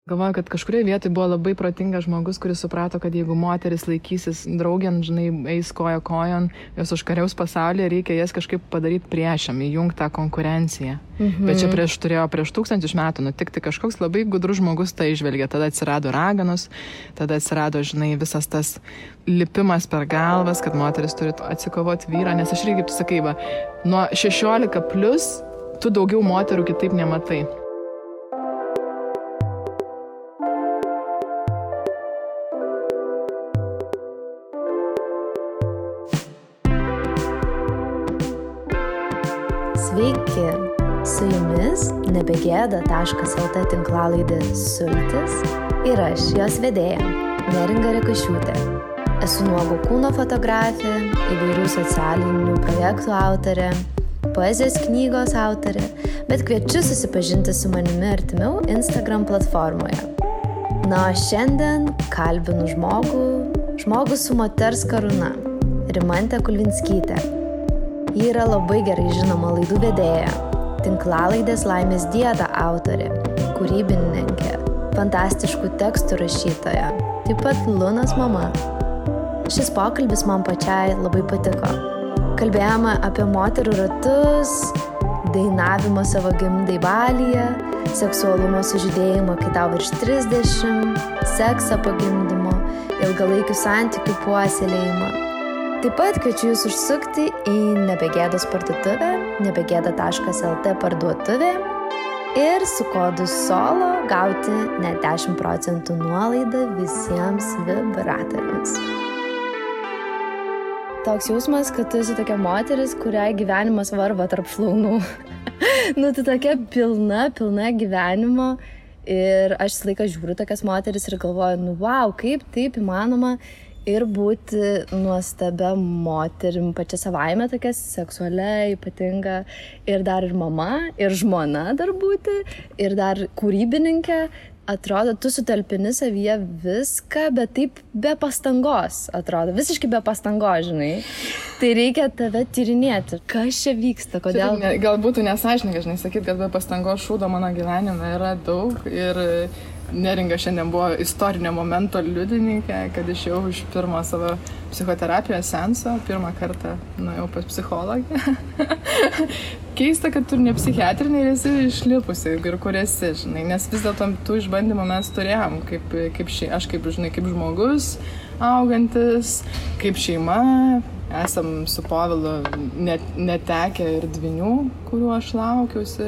Galvoju, kad kažkurioje vietoje buvo labai protingas žmogus, kuris suprato, kad jeigu moteris laikysis draugėn, žinai, eis koja kojon, jos užkariaus pasaulyje, reikia jas kažkaip padaryti priešam, įjungti tą konkurenciją. Bet čia turėjo prieš 1000 metų nutikti kažkoks labai gudrus žmogus tai išvelgė. Tada atsirado raganos, tada atsirado, žinai, visas tas lipimas per galvas, kad moteris turi atsikovoti vyrą, nes aš irgi, kaip tu sakai, va, nuo 16+ tu daugiau moterų kitaip nematai. Sveiki, su jumis nebegėda.lt tinklalaidė Sultis ir aš, jos vedėja, Neringa Rekašiūtė. Esu nuogo kūno fotografė, įvairių socialinių projektų autorė, poezijos knygos autorė, bet kviečiu susipažinti su manimi artimiau Instagram platformoje. Na, šiandien kalbinu žmogų su moters karūna, Rimantę Kulvinskytę. Ji yra labai gerai žinoma laidų vedėja, tinklalaidės Laimės dieta autorė, kūrybininkė, fantastiškų tekstų rašytoja, taip pat Lunos mama. Šis pokalbis man pačiai labai patiko. Kalbėjome apie moterų ratus, dainavimą savo gimdai Balyje, seksualumo sužydėjimą, kai tau virš 30, seksą po gimdymo, ilgalaikių santykių puoselėjimą. Taip pat kviečiu jūs užsukti į Nebegėdos parduotuvę, nebegėda.lt parduotuvė ir su kodu SOLO gauti net 10% nuolaidą visiems vibratoriams. Toks jausmas, kad tu esi tokia moteris, kuriai gyvenimas varva tarp šlaunų. Tu tokia pilna gyvenimo ir aš visą laiką žiūriu tokias moteris ir galvoju, wow, kaip taip įmanoma ir būti nuostabia moterim pačia savaime, tokia seksualia, ypatinga, ir dar ir mama, ir žmona dar būti, ir dar kūrybininkė. Atrodo, tu sutalpini savyje viską, bet taip be pastangos, atrodo, visiškai be pastangos, žinai. Tai reikia tave tyrinėti. Kas čia vyksta, kodėl? Gal būtų nesąžininga, žinai, sakyt, kad be pastangos šūdo mano gyvenime yra daug ir Neringa šiandien buvo istorinio momento liudininkė, kad išėjau iš pirmo savo psichoterapijos seanso, pirmą kartą nuėjau pas psichologę. Keista, kad tu ne psichiatrinė ir esi išlipusi ir kur esi, žinai, nes vis dėlto tų išbandymų mes turėjom, aš kaip žmogus augantis, kaip šeima. Esam su Povilu netekę ir dvynių, kuriuo aš laukiausi,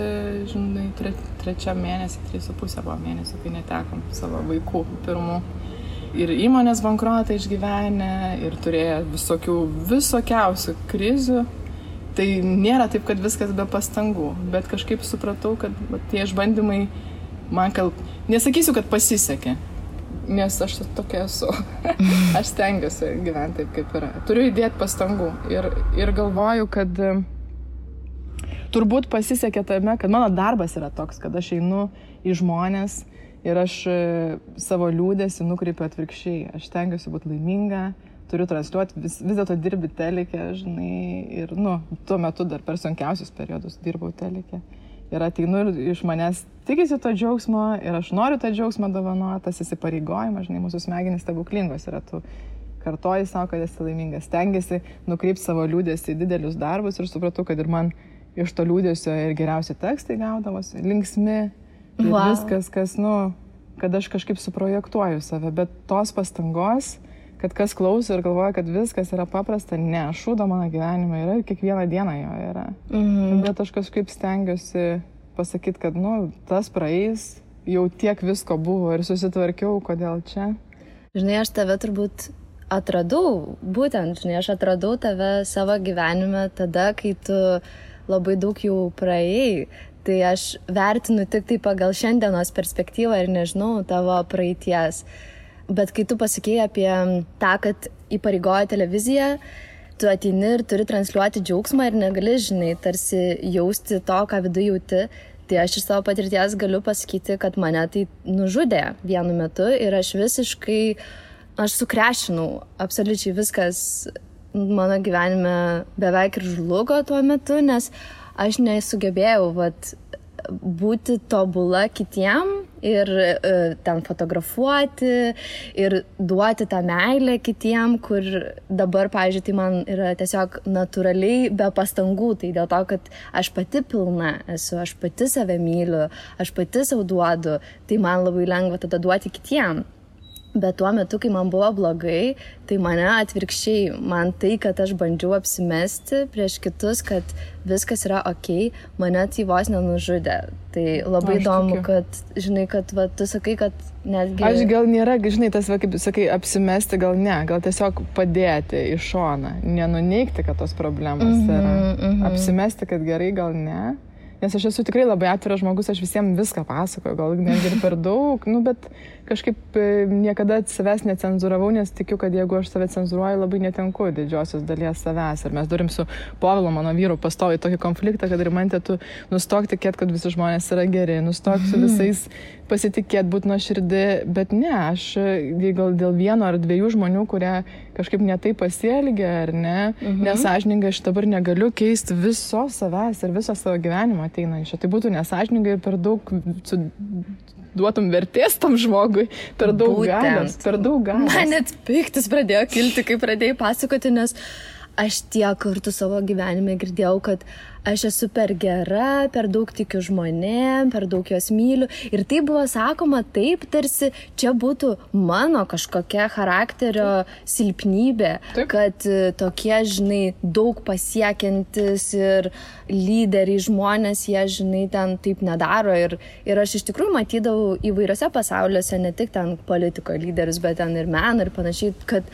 žinai, 3 mėnesį, 3,5 buvo mėnesį, kai netekom savo vaikų pirmų. Ir įmonės bankrotą išgyvenę, ir turėjo visokiausių krizių. Tai nėra taip, kad viskas be pastangų, bet kažkaip supratau, kad tie išbandymai man nesakysiu, kad pasisekė. Nes aš tokia esu. Aš stengiuosi gyventi taip, kaip yra. Turiu įdėti pastangų ir galvoju, kad turbūt pasisekė tame, kad mano darbas yra toks, kad aš einu į žmonės ir aš savo liūdesį nukreipiu atvirkščiai. Aš stengiuosi būti laiminga, turiu transliuoti, vis dėlto dirbi teleke, žinai, ir tuo metu dar per sunkiausius periodus dirbau teleke. Ir ateinu ir iš manęs tikisi to džiaugsmo ir aš noriu tą džiaugsmą dovanoti, tas įsipareigojimas, žinai, mūsų smegenys stebuklingos yra, tu kartoji savo, kad esi laimingas, stengiasi nukreipti savo liūdesį į didelius darbus ir supratau, kad ir man iš to liūdesio ir geriausi tekstai gaudavosi, linksmi ir viskas, kad aš kažkaip suprojektuoju save, bet tos pastangos, kad kas klauso ir galvoja, kad viskas yra paprasta, ne, šūdo mano gyvenime yra ir kiekvieną dieną jo yra. Bet aš kažkaip stengiuosi pasakyti, kad, tas praeis, jau tiek visko buvo ir susitvarkiau, kodėl čia. Žinai, aš tave turbūt atradau, aš atradau tave savo gyvenime tada, kai tu labai daug jau praėjai. Tai aš vertinu tik tai pagal šiandienos perspektyvą ir nežinau tavo praeities. Bet kai tu pasakėjai apie tą, kad įpareigoja televiziją, tu ateini ir turi transliuoti džiaugsmą ir negali, žinai, tarsi jausti to, ką viduje jauti, tai aš iš savo patirties galiu pasakyti, kad mane tai nužudė vienu metu ir aš sukrešinau, absoliučiai viskas mano gyvenime beveik ir žlugo tuo metu, nes aš nesugebėjau būti tobula kitiem ir ten fotografuoti ir duoti tą meilę kitiem, kur dabar, pavyzdžiui, tai man yra tiesiog natūraliai be pastangų, tai dėl to, kad aš pati pilna esu, aš pati save myliu, aš pati savo duodu, tai man labai lengva tada duoti kitiem. Bet tuo metu, kai man buvo blogai, tai mane atvirkščiai, man tai, kad aš bandžiau apsimesti prieš kitus, kad viskas yra okei, mane tai vos nenužudė. Tai labai įdomu, kad, žinai, kad va, tu sakai, kad netgi... Aš gal nėra, žinai, tas, kaip sakai, apsimesti gal ne, gal tiesiog padėti į šoną, nenuneigti, kad tos problemos yra. Apsimesti, kad gerai, gal ne. Nes aš esu tikrai labai atviras žmogus, aš visiems viską pasakoju, gal netgi ir per daug, bet kažkaip niekada savęs necenzūravau, nes tikiu, kad jeigu aš save cenzūruoju, labai netenku didžiosios dalies savęs. Ir mes turim su Povilu, mano vyru, pastoviai tokį konfliktą, kad Rimantė, tu nustok tikėt, kad visi žmonės yra geri, nustok su visais pasitikėt, būti nuoširdi, bet ne, aš gal dėl vieno ar dviejų žmonių, kurie kažkaip netai pasielgia, ar ne, nesąžiningai aš dabar negaliu keisti viso savęs ir viso savo gyvenimo ateinančio. Tai būtų nesąžiningai ir per daug duotum vertės tam žmogui, per daug galios, per daug galios. Man net piktis pradėjo kilti, kai pradėjai pasakoti, nes aš tiek kartų savo gyvenime girdėjau, kad aš esu per gera, per daug tikiu žmonėm, per daug juos myliu. Ir tai buvo sakoma taip, tarsi čia būtų mano kažkokia charakterio silpnybė, kad tokie, žinai, daug pasiekiantis ir lyderiai žmonės, jie, žinai, ten taip nedaro. Ir aš iš tikrųjų matydavau įvairiose pasauliuose, ne tik ten politiko lyderius, bet ten ir meno ir panašiai, kad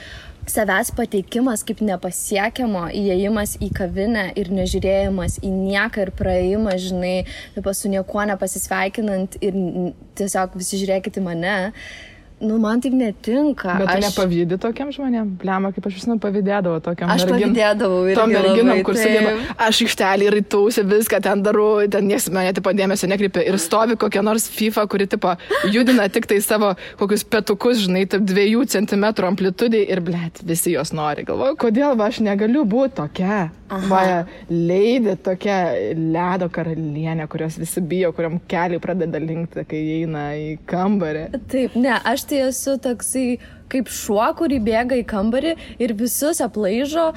savęs pateikimas kaip nepasiekiamo, įėjimas į kavinę ir nežiūrėjimas į nieką ir praėjimas, žinai, taip su niekuo nepasisveikinant ir tiesiog visi žiūrėkit į mane. Nu, man taip netinka. Bet tu nepavydį tokiam žmonėm? Blema, kaip aš visą pavydėdavau tokiam merginam. Aš pavydėdavau irgi tom merginam, kur sugeba, aš aikštelį rytausi, viską ten darau, ten nieks mane tipo dėmesio nekreipia ir stovi kokia nors FIFA, kuri tipo judina tik tai savo kokius petukus, žinai, taip 2 centimetrų amplitudai ir blėt, visi jos nori. Galvoju, kodėl aš negaliu būti tokia? Va, Lady, tokia ledo karalienė, kurios visi bijo, kuriam keliai pradeda linkti, kai eina į kambarį. Taip, ne, aš tai esu toksai kaip šuo, kurį bėga į kambarį ir visus aplaižo,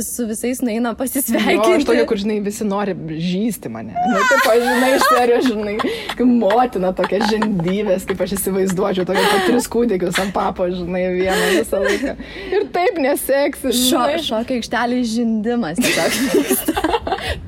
su visais nueina pasisveikinti. Jo, aš tokia, kur, žinai, visi nori žysti mane. Nu, taip, žinai, iš serijos, žinai, kaip motina tokia žindyvės, kaip aš įsivaizduočiau, tokia po 3 kūdikius ant papo, žinai, vieną visą laiką. Ir taip neseksi. Šokio aikštelės žindimas tiesiog.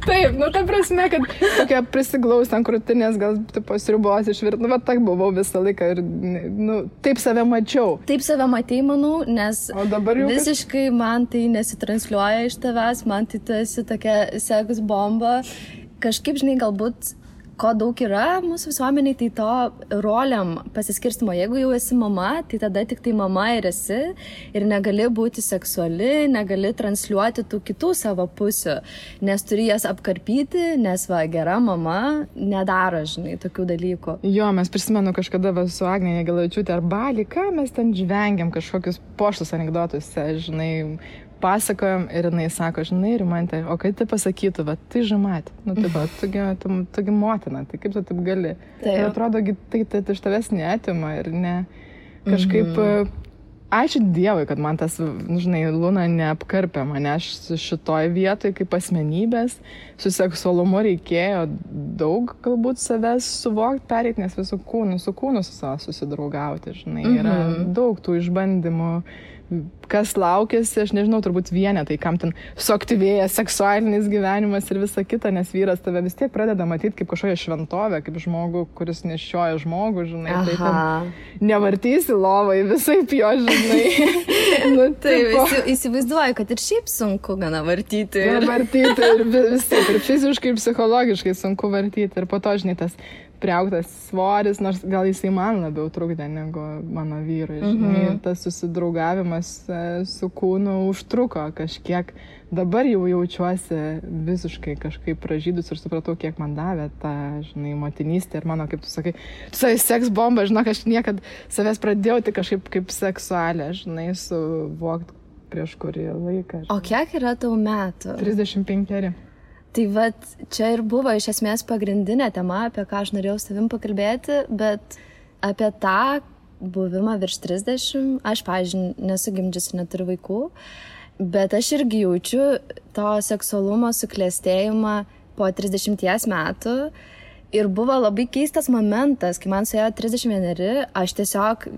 Taip, nu, ta prasme, kad tokia prisiglaus ant krūtinės, gal tipo sriubos išvirt, nu, va, tak buvau visą laiką ir, nu, taip save mačiau. Taip save matei, manau, nes visiškai man tai nesitransliuoja iš tavęs, man tai tu esi tokia seks bomba. Kažkaip, žinai, galbūt ko daug yra mūsų visuomeniai, tai to roliam pasiskirstimo. Jeigu jau esi mama, tai tada tik tai mama ir esi ir negali būti seksuali, negali transliuoti tų kitų savo pusių, nes turi jas apkarpyti, nes va, gera mama nedaro, žinai, tokių dalykų. Jo, mes prisimenu kažkada su Agne Jagelavičiūte ar Bali, ką mes ten žvengiam kažkokius poštus anekdotus, žinai, pasakojom ir jinai sako, žinai, Rimantė, o kai tai pasakytų, va, tai žamat, nu, taip, tugi motina, tai kaip tu taip gali? Taip. Ir atrodo, tai iš tavęs neatima ir ne, kažkaip, ačiū Dievui, kad man tas, žinai, Luna neapkarpė mane, aš šitoj vietoj kaip asmenybės, su seksualumu reikėjo daug galbūt savęs suvokti, pereiti, nes su kūnu su savo susidraugauti, žinai, yra daug tų išbandymų, kas laukėsi, aš nežinau, turbūt vienetai, kam ten suaktyvėja seksualinis gyvenimas ir visa kita, nes vyras tave vis tiek pradeda matyti kaip kažkokią šventovę, kaip žmogų, kuris nešioja žmogų, žinai, tai ten nevartysi lovai, visai jo, žinai. Nu, taip, įsivaizduoju, kad ir šiaip sunku gana vartyti. Vartyti ir visai, ir fiziškai, ir psichologiškai sunku vartyti, ir po to, žinai, tas priaugtas svoris, nors gal jisai man labiau trukdė negu mano vyrui. Žinai, tas susidraugavimas su kūnu užtruko kažkiek. Dabar jau jaučiuosi visiškai kažkaip pražydus ir supratau, kiek man davė ta, žinai, motinystė ir mano, kaip tu sakai, seks bomba, žinok, aš niekad savęs pradėjau tik kažkaip kaip seksualė, žinai, suvokti prieš kurį laiką. O kiek yra tau metų? 35. Tai vat, čia ir buvo iš esmės pagrindinė tema, apie ką aš norėjau su tavim pakalbėti, bet apie tą buvimą virš 30, aš, pavyzdžiui, nesu gimdžiusi, neturiu vaikų, bet aš irgi jaučiu to seksualumo suklestėjimą po 30 metų ir buvo labai keistas momentas, kai man suėjo 31, aš tiesiog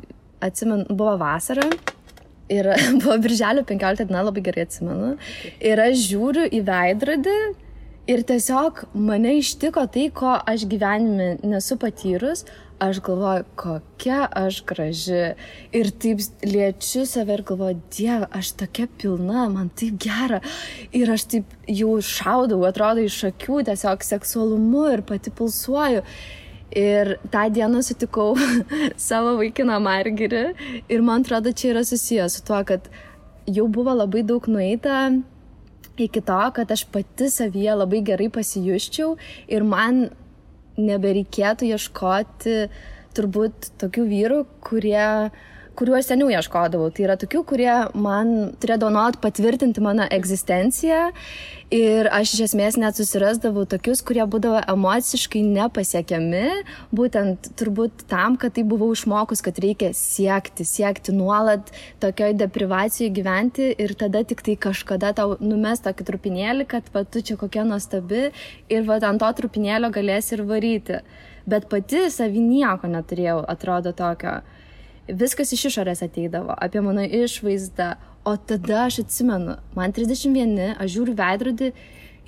atsimenu, buvo vasara ir buvo birželio 15 diena, labai gerai atsimenu, ir aš žiūriu į veidrodį ir tiesiog mane ištiko tai, ko aš gyvenime nesu patyrus. Aš galvoju, kokia aš graži. Ir taip liečiu save ir galvoju, Dieve, aš tokia pilna, man taip gera. Ir aš taip jau šaudau, atrodo, iš akių tiesiog seksualumu ir pati pulsuoju. Ir tą dieną sutikau savo vaikiną Margirį. Ir man atrodo, čia yra susijęs su tuo, kad jau buvo labai daug nueita iki to, kad aš pati savyje labai gerai pasijusčiau ir man nebereikėtų ieškoti turbūt tokių vyrų, kuriuo aš seniau ieškodavau. Tai yra tokių, kurie man turėdavo nuolat patvirtinti mano egzistenciją ir aš iš esmės net susirasdavau tokius, kurie būdavo emociškai nepasiekiami, būtent turbūt tam, kad tai buvau išmokus, kad reikia siekti nuolat tokioj deprivacijoje gyventi ir tada tik tai kažkada tau numes tokį trupinėlį, kad va, tu čia kokia nuostabi ir va, ant to trupinėlio galėsi ir varyti. Bet pati savy nieko neturėjau, atrodo tokio. Viskas iš išorės ateidavo, apie mano išvaizdą, o tada aš atsimenu, man 31, aš žiūriu veidrodį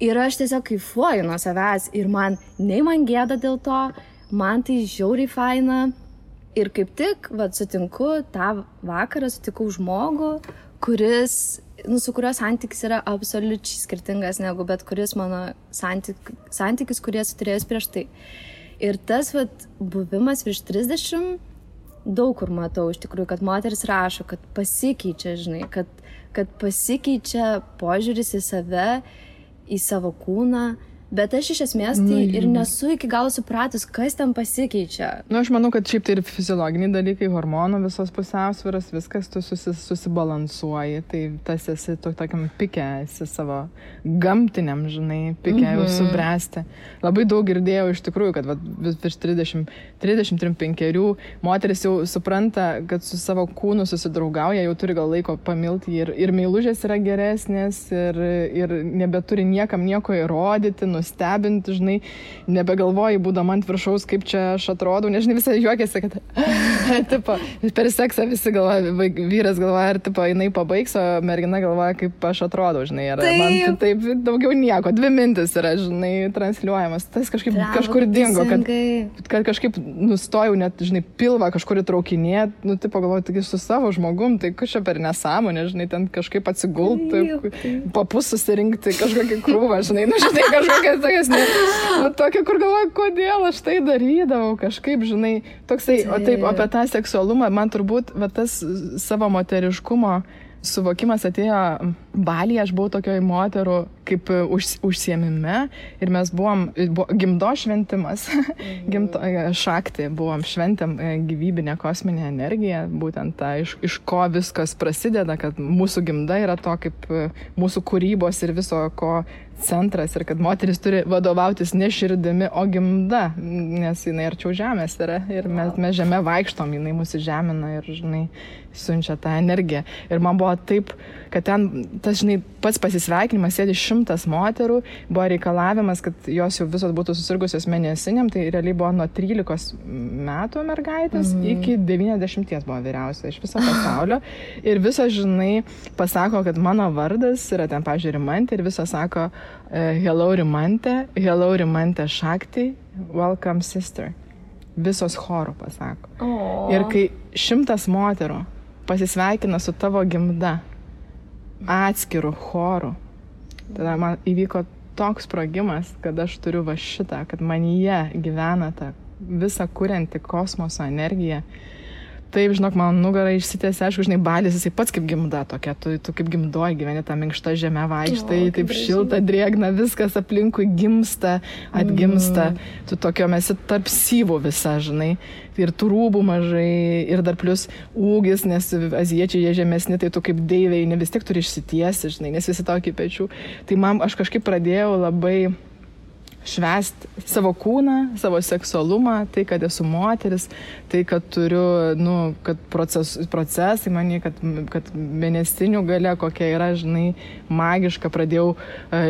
ir aš tiesiog kaifuoju nuo savęs ir man gėda dėl to, man tai žiauriai faina ir kaip tik, sutinku, tą vakarą sutikau žmogų, su kurio santykis yra absoliučiai skirtingas negu bet kuris mano santykis, kurį esu turėjus prieš tai. Ir tas buvimas virš 30, daug kur matau iš tikrųjų, kad moteris rašo, kad pasikeičia, žinai, kad pasikeičia požiūris į save, į savo kūną, bet aš iš esmės tai ir nesu iki galo supratus, kas ten pasikeičia. Aš manau, kad šiaip tai ir fiziologiniai dalykai, hormonų visos pusiausvyros, viskas tu susibalansuoji, tai tas esi tokiam pike, esi savo gamtiniam, žinai, pike jau subręsti. Labai daug girdėjau iš tikrųjų, kad virš 30-35 moteris jau supranta, kad su savo kūnu susidraugauja, jau turi gal laiko pamilti ir meilužės yra geresnės ir nebeturi niekam nieko įrodyti, nustebinti, žinai, nebegalvoji, būdama ant viršaus, kaip čia aš atrodau, nežinai, visai juokiasi, kad tipo, per seksą visi galvoja, vyras galvoja, ar tipo, jinai pabaigs, o mergina galvoja, kaip aš atrodau, žinai, ar man taip daugiau nieko, 2 mintis yra, žinai, transliuojamas, tas kažkur dingo, kad kažkaip nustojau net, žinai, pilvą kažkur įtraukinėt, tipo, galvoju, taigi su savo žmogum, tai kažkaip per nesąmonę, žinai, ten kažkaip atsigulti, papus susirinkti, kažkokį krūvą, žinai, žinai, kažkokia tokia, kur galvoju, kodėl aš tai darydavau, kažkaip, žinai, toksai, o taip, apie tą seksualumą, man turbūt, tas savo moteriškumo suvokimas atėjo Balyje, aš buvau tokioj moterų kaip užsiėmime ir mes buvom gimdo šventimas, šakti, buvom šventėm gyvybinę kosminę energiją, būtent tą, iš ko viskas prasideda, kad mūsų gimda yra to kaip mūsų kūrybos ir viso ko centras ir kad moteris turi vadovautis ne širdimi, o gimda, nes jinai arčiau žemės yra ir mes žemė vaikštom, jinai mūsų žemina ir, žinai, siunčia tą energiją. Ir man buvo taip, kad ten tas, žinai, pats pasisveikinimas, sėdi 100 moterų, buvo reikalavimas, kad jos jau visos būtų susirgusios mėnesiniam, tai realiai buvo nuo 13 metų mergaitės iki 90 buvo vyriausia iš viso pasaulio. Ir visos, žinai, pasako, kad mano vardas yra ten, pavyzdžiui, Rimantė ir visos sako hello Rimantė Šakti, welcome sister. Visos chorų pasako. Ir kai 100 moterų pasisveikina su tavo gimda atskirų chorų, tada man įvyko toks sprogimas, kad aš turiu va šitą, kad manyje gyvena ta visa kurianti kosmoso energija. Taip, žinok, man nugara išsitėsi, aišku, žinai, Balis, jisai pats kaip gimda tokia, tu kaip gimdoji gyveni tą minkštą žemę vaikštai, taip šilta, drėgna, viskas aplinkui gimsta, atgimsta, tu tokio esi tarp syvų visa, žinai, ir tų rūbų mažai, ir dar plus ūgis, nes azijiečiai jie žemesni, tai tu kaip deivei, ne vis tiek turi išsitiesi, žinai, nes visi tokį pečių. Tai man, aš kažkaip pradėjau labai švęsti savo kūną, savo seksualumą, tai, kad esu moteris, tai, kad turiu, kad procesai mani, kad mėnesinių gale kokia yra, žinai, magiška, pradėjau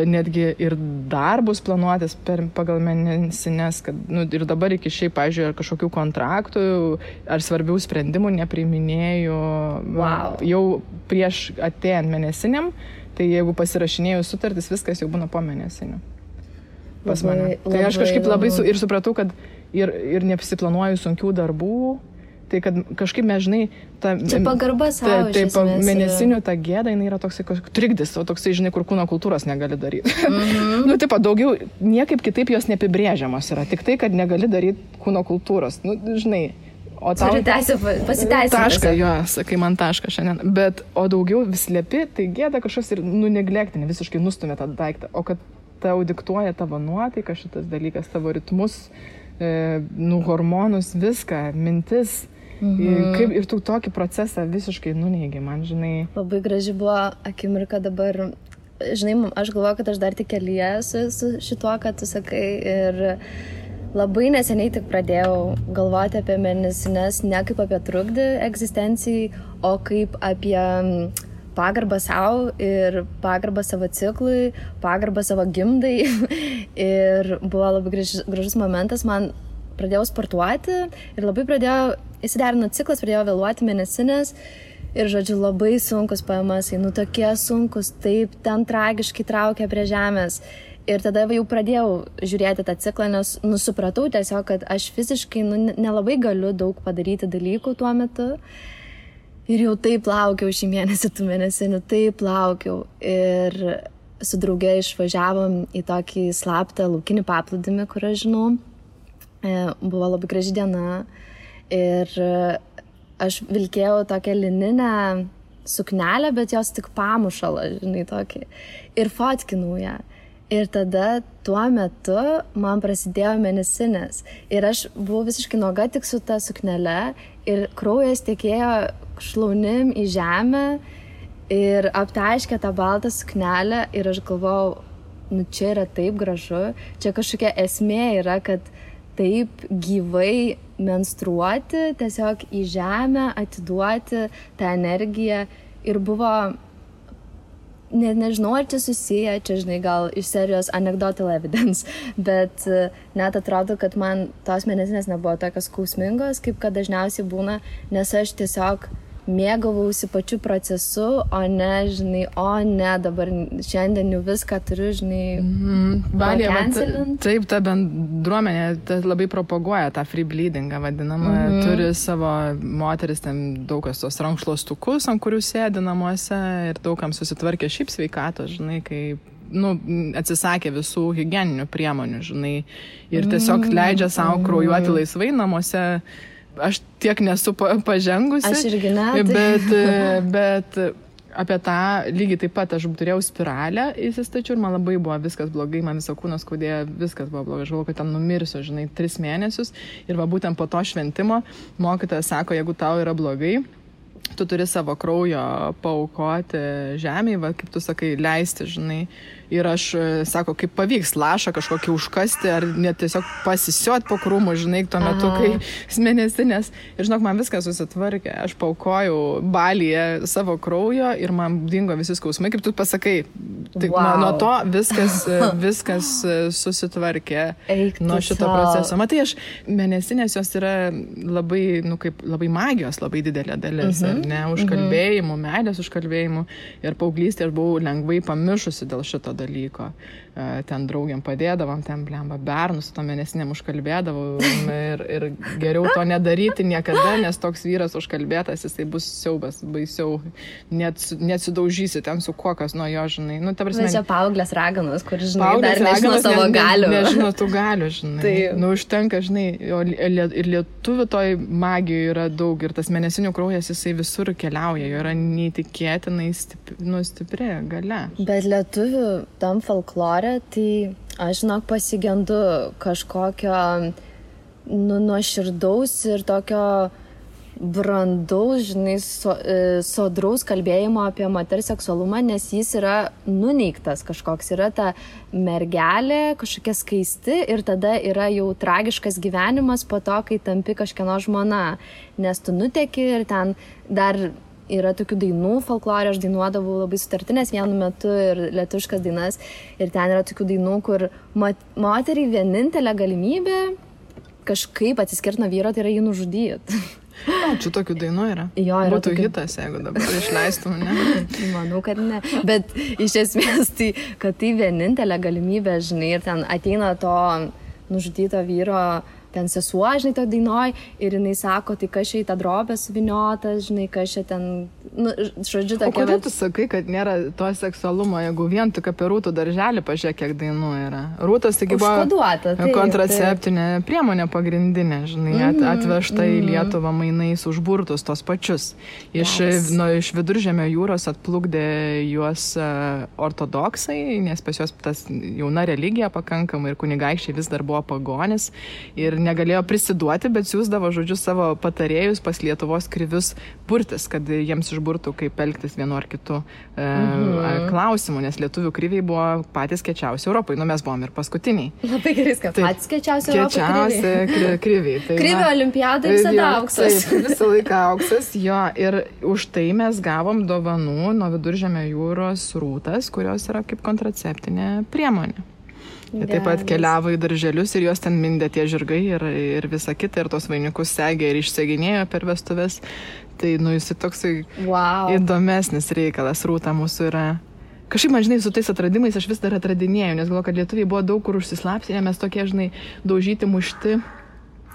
netgi ir darbus planuotis pagal mėnesines, kad, ir dabar iki šiaip, pavyzdžiui, kažkokių kontraktų ar svarbių sprendimų nepriiminėju. Wow. Jau prieš atėjant mėnesiniam, tai jeigu pasirašinėjau sutartis, viskas jau būna po mėnesinių pas mane. Tai aš kažkaip labai ir supratau, kad ir nepasiplanuoju sunkių darbų, tai kad kažkaip mes, žinai, čia pagarba savo iš esmės. Mėnesinių ta gėda, jinai yra toksai trikdis, o toksai, žinai, kur kūno kultūros negali daryti. Daugiau, niekaip kitaip jos neapibrėžiamos yra, tik tai, kad negali daryti kūno kultūros, žinai. O tau pasiteisinti. Tašką, jo, sakai man tašką šiandien. Bet, o daugiau vis liepi, tai gėda kažkas ir neglektinė, visiškai nustumė tą daiktą. O kad tau diktuoja tavo nuotaiką šitas dalykas, tavo ritmus, hormonus, viską, mintis. Kaip ir tu tokį procesą visiškai nuneigi, man, žinai. Labai graži buvo akimirka dabar. Žinai, aš galvoju, kad aš dar tik kelyje su šituo, kad tu sakai. Ir labai neseniai tik pradėjau galvoti apie mėnesines ne kaip apie trukdį egzistencijai, o kaip apie pagarbą savo ir pagarbą savo ciklui, pagarbą savo gimdai. Ir buvo labai gražus momentas, man pradėjau sportuoti ir labai įsiderino ciklas, pradėjau vėluoti mėnesinės. Ir, žodžiu, labai sunkus PMS, tokie sunkus, taip ten tragiškai traukia prie žemės. Ir tada jau pradėjau žiūrėti tą ciklą, nes supratau tiesiog, kad aš fiziškai nelabai galiu daug padaryti dalykų tuo metu. Ir jau taip laukiau šį mėnesį, tų mėnesinių, taip laukiau. Ir su drauge išvažiavom į tokį slaptą laukinį paplūdimį, kur aš žinau. Buvo labai graži diena. Ir aš vilkėjau tokią lininę suknelę, bet jos tik pamušalą, žinai, tokį. Ir fotkinau ją. Ir tada tuo metu man prasidėjo mėnesinės. Ir aš buvau visiškai nuoga tik su ta suknele ir kraujas tekėjo šlaunim į žemę ir aptaškė tą baltą suknelę ir aš galvojau, čia yra taip gražu, čia kažkokia esmė yra, kad taip gyvai menstruuoti, tiesiog į žemę atiduoti tą energiją ir buvo... Nežinau, ar čia susiję, čia, žinai, gal iš serijos anecdotal evidence, bet net atrodo, kad man tos mėnesinės nebuvo tokios skausmingos, kaip kad dažniausiai būna, nes aš tiesiog mėgavausi pačiu procesu, o ne, dabar šiandien jau viską turiu, žinai, pakencelint. Taip, ta bendruomenė labai propaguoja tą free bleedingą vadinamą, turi savo moteris, ten daug kas tos rankšluostukus, ant kurių sėdi namuose ir daugam susitvarkė šiaip sveikatos, žinai, kaip atsisakė visų higieninių priemonių, žinai, ir tiesiog leidžia savo kraujuoti laisvai namuose. Aš tiek nesu pažengusi, aš irgi ne, bet apie tą lygiai taip pat aš turėjau spiralę įsistačiau ir man labai buvo viskas blogai, man visą kūną skaudėjo, viskas buvo blogai, aš galvoju, kad ten numirsiu, žinai, 3 mėnesius ir va būtent po to šventimo mokytojas sako, jeigu tau yra blogai, tu turi savo kraujo paaukoti žemėje, va, kaip tu sakai, leisti, žinai. Ir aš, sako, kaip pavyks lašą kažkokį užkasti, ar net tiesiog pasisiot po krūmų, žinai, tuo metu, kai mėnesinės. Ir žinok, man viskas susitvarkė. Aš paaukojau Balyje savo kraujo ir man dingo visi skausmai, kaip tu pasakai. Tik nuo to viskas susitvarkė nuo šito proceso. Matai, mėnesinės jos yra labai, kaip labai magijos, labai didelė dalis. Ne, užkalbėjimų, meilės užkalbėjimų. Ir paauglystėje aš buvau lengvai pamišusi dėl šito dalyko. Ten draugiam padėdavom, ten blemba bernus, su to mėnesinėm užkalbėdavau ir geriau to nedaryti niekada, nes toks vyras užkalbėtas, jisai bus siaubas, baisiau, net sudaužysi ten su kokas nuo jo, žinai. Nu, ta prasme, čia paauglės raganos, kur, žinai, dar nežino savo galių. Nežino tų galių, žinai. Tai... Nu, užtenka, žinai, ir lietuvių toj magijoje yra daug ir tas mėnesinių kraujas, jisai visur keliauja, jo yra neįtikėtinai stipri galia. Bet lietuvių tam folklore, tai aš, žinok, pasigendu kažkokio nuoširdaus ir tokio brandaus, žinai, sodraus kalbėjimo apie moters seksualumą, nes jis yra nuneigtas kažkoks. Yra ta mergelė, kažkokia skaisti ir tada yra jau tragiškas gyvenimas po to, kai tampi kažkieno žmona. Nes tu nuteki ir ten dar yra tokių dainų folklorė, aš dainuodavau labai sutartinės vienu metu ir lietuviškas dainas. Ir ten yra tokių dainų, kur moteriai vienintelė galimybė kažkaip atsiskirti nuo vyro, tai yra jį nužudyti. Čia tokių dainų yra. Jo, yra būtų tokių... hitas, jeigu dabar išleistum, ne? Manau, kad ne. Bet iš esmės, tai, kad tai vienintelė galimybė, žinai, ir ten ateina to nužudyto vyro ten sesuo, žinai, to dainoj, ir jinai sako, tai kas čia į tą drobę suviniotas, žinai, kas čia ten, nu, žodžiu, tokia... O kodėl tu sakai, kad nėra to seksualumo, jeigu vien tik apie Rūtų darželį pažiūrėk, kiek dainų yra? Rūtas taigi buvo kontraceptinė priemonė pagrindinė, žinai, atvežta į Lietuvą mainais už burtus tos pačius. Iš Viduržemio jūros atplukdė juos ortodoksai, nes pas juos tas jauna religija pakankamai ir kunigaikščiai vis dar buvo pagonis ir negalėjo prisiduoti, bet siūsdavo, žodžiu, savo patarėjus pas Lietuvos krivius burtis, kad jiems išburtų, kaip elgtis vienu ar kitu klausimu, nes lietuvių kriviai buvo patys kečiausi Europai, nu mes buvom ir paskutiniai. Labai gerai, kad patys kečiausi Europai kriviai. Tai, Krivio olimpiada visada auksas. Taip, visą laiką auksas, jo, ir už tai mes gavom dovanų nuo Viduržemio jūros Rūtas, kurios yra kaip kontraceptinė priemonė. Jie taip pat keliavo į darželius ir juos ten mindė tie žirgai ir visa kita, ir tos vainikus segė ir išseginėjo per vestuves. Tai, nu, jis toksai įdomesnis reikalas. Rūta mūsų yra. Kažkaip, man, žinai, su tais atradimais aš vis dar atradinėjau, nes galvoju, kad lietuviai buvo daug kur užsislapsinę, mes tokie, žinai, daužyti, mušti.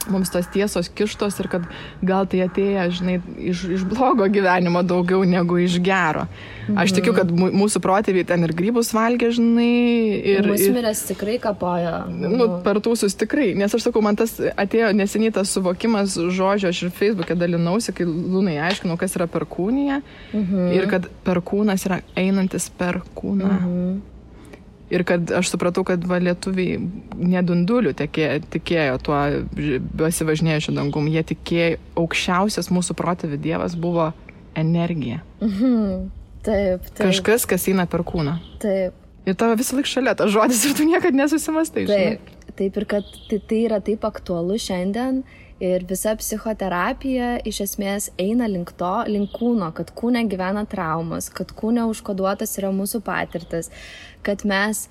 Mums tos tiesos kištos ir kad gal tai atėję, žinai, iš blogo gyvenimo daugiau negu iš gero. Aš tikiu, kad mūsų protėviai ten ir grybus valgė, žinai. Ir musmirės tikrai kapojo. Nu, per tūsus tikrai. Nes aš sakau, man tas atėjo neseniai tas suvokimas žodžio, aš ir Facebook'e dalinausi, kai Lunai aiškinau, kas yra perkūnija. Ir kad perkūnas yra einantis per kūną. Ir kad aš supratau, kad lietuviai nedundulių tikėjo tuo besivažinėjusiu dangum. Jie tikėjo, aukščiausias mūsų protėvių dievas buvo energija. Taip. Kažkas, kas eina per kūną. Taip. Ir tavo visą laik šalia tas žodis ir tu niekad nesusimastai. Taip, ir kad tai yra taip aktualu šiandien. Ir visa psichoterapija iš esmės eina link kūno, kad kūne gyvena traumas, kad kūne užkoduotas yra mūsų patirtis, kad mes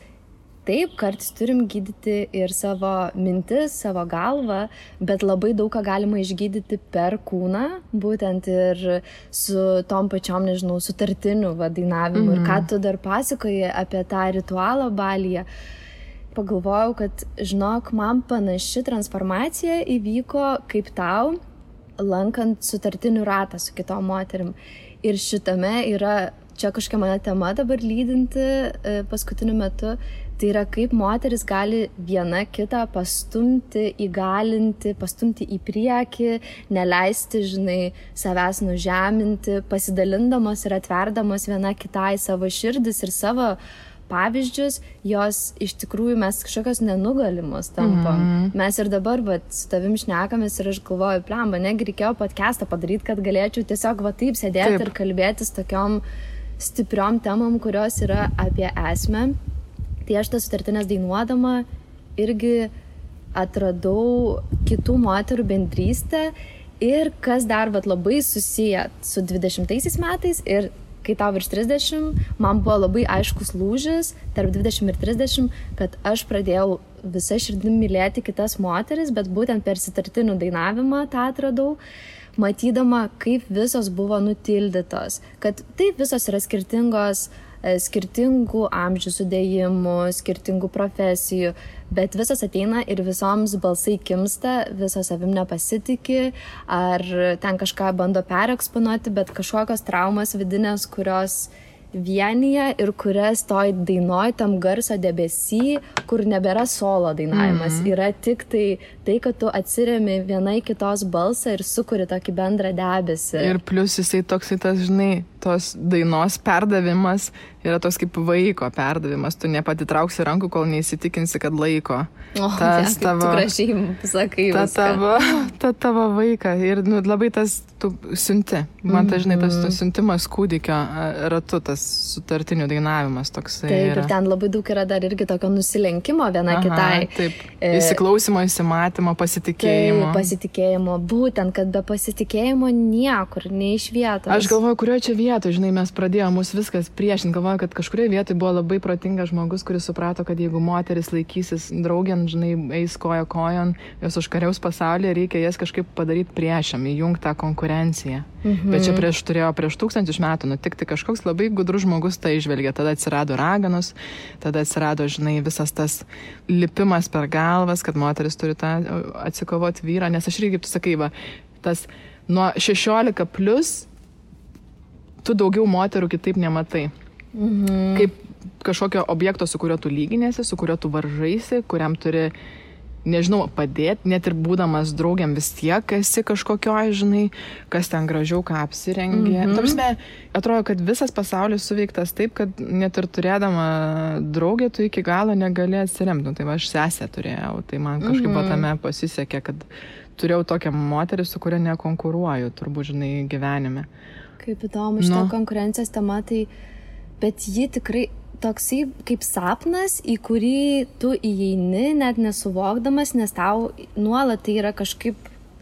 taip kartais turim gydyti ir savo mintis, savo galvą, bet labai daug ką galima išgydyti per kūną, būtent ir su tom pačiom, nežinau, sutartiniu dainavimu. Ir ką tu dar pasakoji apie tą ritualą Balyje. Pagalvojau, kad, žinok, man panaši transformacija įvyko kaip tau, lankant sutartinių ratą su kitom moterim. Ir šitame yra, čia kažkokia mane tema dabar lydinti paskutiniu metu, tai yra kaip moteris gali viena kitą pastumti, įgalinti, pastumti į priekį, neleisti, žinai, savęs nužeminti, pasidalindamos ir atverdamos viena kitai savo širdis ir savo pavyzdžius, jos iš tikrųjų mes kažkokios nenugalimos tampam. Mes ir dabar su tavim šnekamės ir aš galvoju, plemba, negi reikėjo podcastą padaryti, kad galėčiau tiesiog taip sėdėti ir kalbėtis tokiom stipriom temom, kurios yra apie esmę. Tai aš tas sutartinės dainuodama irgi atradau kitų moterų bendrystę ir kas dar labai susiję su 20 metais ir kai tau virš 30, man buvo labai aiškus lūžis tarp 20 ir 30, kad aš pradėjau visą širdim mylėti kitas moteris, bet būtent per sutartinių dainavimą tą atradau, matydama, kaip visos buvo nutildytos, kad taip visos yra skirtingos, skirtingų amžių sudėjimų, skirtingų profesijų, bet visas ateina ir visoms balsai kimsta, visos savim nepasitikė, ar ten kažką bando pereksponuoti, bet kažkokios traumas vidinės, kurios vienyje ir kurias toj dainoj tam garso debesy, kur nebėra solo dainavimas, yra tik tai, kad tu atsiremi viena į kitos balsą ir sukuri tokį bendrą debesį. Ir plius jisai toksai tas, žinai, tos dainos perdavimas yra toks kaip vaiko perdavimas. Tu nepatitrauksi rankų, kol neįsitikinsi, kad laiko. Tas tavo, tu gražiai sakai ta tavo vaiką. Ir labai tas tu siunti. Man žinai, tas siuntimas kūdikio ratu, tas sutartinių dainavimas toksai. Taip, ir ten labai daug yra dar irgi tokio nusilenkimo viena kitai. Taip, įsiklausimo, įsimatymo, pasitikėjimo. Taip, pasitikėjimo. Būtent, kad be pasitikėjimo niekur, nei iš vietos. Aš galvoju, kurioje čia vietoje, žinai, mes pradėjome mus viskas priešinti. Galvoju, kad kažkurioje vietoje buvo labai protingas žmogus, kuris suprato, kad jeigu moteris laikysis draugėn, žinai, eis koja kojon, jos užkariaus pasaulyje, reikia jas kažkaip padaryti priešam, įjungti tą konkurenciją. Bet čia turėjo prieš 1000 metų nutikti kažkoks labai gudrus žmogus tai išvelgė. Tada atsirado raganos, tada atsirado, žinai, visas tas lipimas per galvas, kad moteris turi tą atsikovoti vyrą. Nes aš irgi, kaip tu sakai, tas nuo 16 plus tu daugiau moterų kitaip nematai. Kaip kažkokio objekto, su kuriuo tu lyginėsi, su kuriuo tu varžaisi, kuriam turi, nežinau, padėti, net ir būdamas draugiam vis tiek esi kažkokioj, žinai, kas ten gražiau, ką apsirengė. Tarpsme, atrodo, kad visas pasaulis suveiktas taip, kad net ir turėdama draugę, tu iki galo negali atsiremti. Tai aš sesę turėjau, tai man kažkaip tame pasisekė, kad turėjau tokią moterį, su kuria nekonkuruoju, turbūt, žinai, gyvenime. Kaip įdomu, šitą konkurencijos tema, tai, bet ji tikrai toksai kaip sapnas, į kurį tu įeini, net nesuvokdamas, nes tau nuolat tai yra kažkaip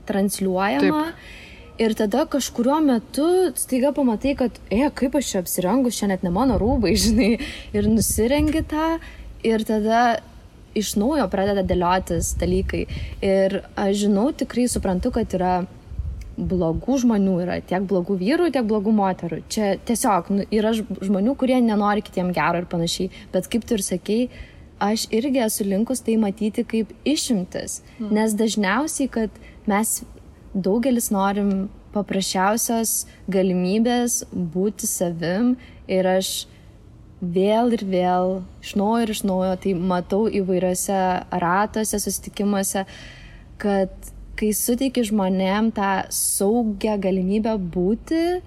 transliuojama. Taip. Ir tada kažkuriuo metu staiga pamatai, kad, kaip aš čia apsirengus, čia net ne mano rūbai, žinai, ir nusirengi tą, ir tada iš naujo pradeda dėliotis dalykai. Ir aš žinau, tikrai suprantu, kad yra blogų žmonių, yra tiek blogų vyrų, tiek blogų moterų. Čia tiesiog yra žmonių, kurie nenori kitiem gero ir panašiai. Bet kaip tu ir sakei, aš irgi esu linkus tai matyti kaip išimtis. Nes dažniausiai, kad mes daugelis norim paprasčiausios galimybės būti savim ir aš vėl ir vėl, iš naujo, tai matau įvairiose ratuose, susitikimuose, kad kai suteiki žmonėm tą saugią galimybę būti,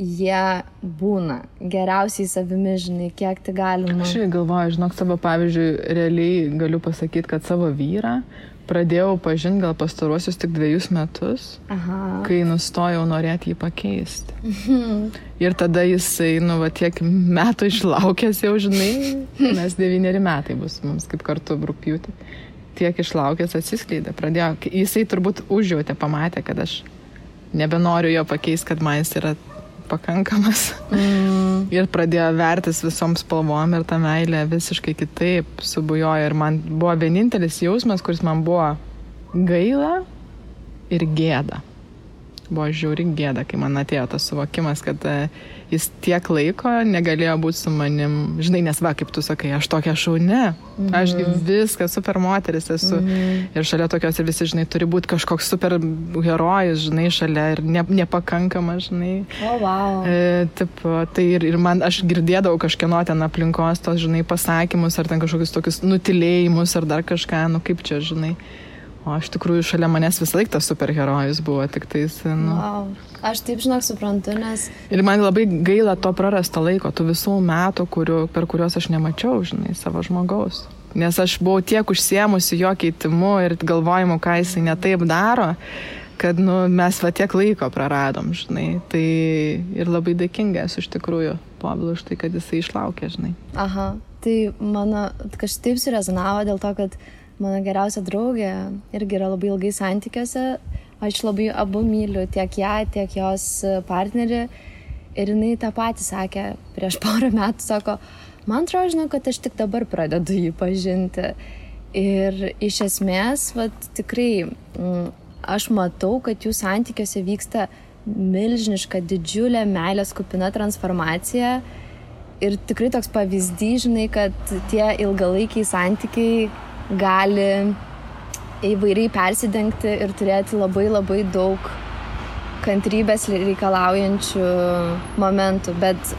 jie būna geriausiai savimi, žinai, kiek tai galima. Aš galvoju, žinok, savo pavyzdžiui, realiai galiu pasakyti, kad savo vyrą pradėjau pažinti gal pastaruosius tik 2 metus, kai nustojau norėti jį pakeisti. Ir tada jisai, tiek metų išlaukęs jau, žinai, nes 9 metai bus mums kaip kartu rugpjūtį. Tiek išlaukęs atsiskleidė, pradėjo, jisai turbūt užjautė, pamatė, kad aš nebenoriu jo pakeisti, kad man jis yra pakankamas. Ir pradėjo vertis visom spalvom ir ta meilė visiškai kitaip subujojo. Ir man buvo vienintelis jausmas, kuris man buvo gaila ir gėda. Buvo žiauri gėda, kai man atėjo tas suvokimas, kad jis tiek laiko negalėjo būti su manim. Žinai, nes kaip tu sakai, aš tokia šauni. Aš viską super moteris esu. Ir šalia tokios ir visi, žinai, turi būti kažkoks super herojus, žinai, šalia ir nepakankama, žinai. Tai ir man, aš girdėdavau kažkieno ten aplinkos tos, žinai, pasakymus ar ten kažkokius tokius nutilėjimus ar dar kažką, kaip čia, žinai. O aš tikrųjų šalia manęs vis laik tas superherojus buvo, tik tais, Aš taip, žinok, suprantu, nes... Ir man labai gaila to prarasto laiko, tų visų metų, per kuriuos aš nemačiau, žinai, savo žmogaus. Nes aš buvau tiek užsiėmusi jo keitimu ir galvojimu, ką jisai netaip daro, kad, mes tiek laiko praradom, žinai. Tai ir labai dėkinga esu iš tikrųjų Povilui už tai, kad jisai išlaukė, žinai. Tai mano kažkaip surezonavo dėl to, kad mano geriausia draugė irgi yra labai ilgai santykiuose. Aš labai abu myliu, tiek ją, tiek jos partnerį. Ir jinai tą patį sakė prieš porą metų, sako, man atrodo, žinau, kad aš tik dabar pradedu jį pažinti. Ir iš esmės, tikrai, aš matau, kad jų santykiuose vyksta milžiniška, didžiulė meilės kupina transformacija. Ir tikrai toks pavyzdys, žinai, kad tie ilgalaikiai santykiai gali įvairiai persidengti ir turėti labai labai daug kantrybės reikalaujančių momentų. Bet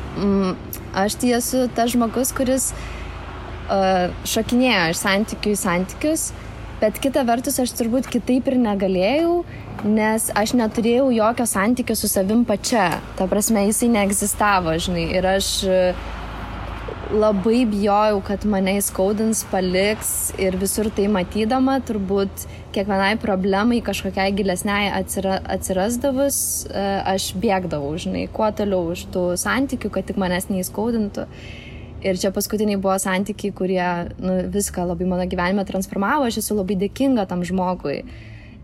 aš tai esu tas žmogus, kuris šokinėjo iš santykių į santykius Bet kita vertus, aš turbūt kitaip ir negalėjau, nes aš neturėjau jokio santykio su savim pačia. Ta prasme, jisai neegzistavo, žinai. Ir aš labai bijojau, kad mane įskaudins, paliks ir visur tai matydama, turbūt kiekvienai problemai kažkokiai gilesniai atsirasdavus, aš bėgdavau, žinai, kuo toliau už tų santykių, kad tik manęs neįskaudintų. Ir čia paskutiniai buvo santykiai, kurie viską labai mano gyvenime transformavo, aš esu labai dėkinga tam žmogui.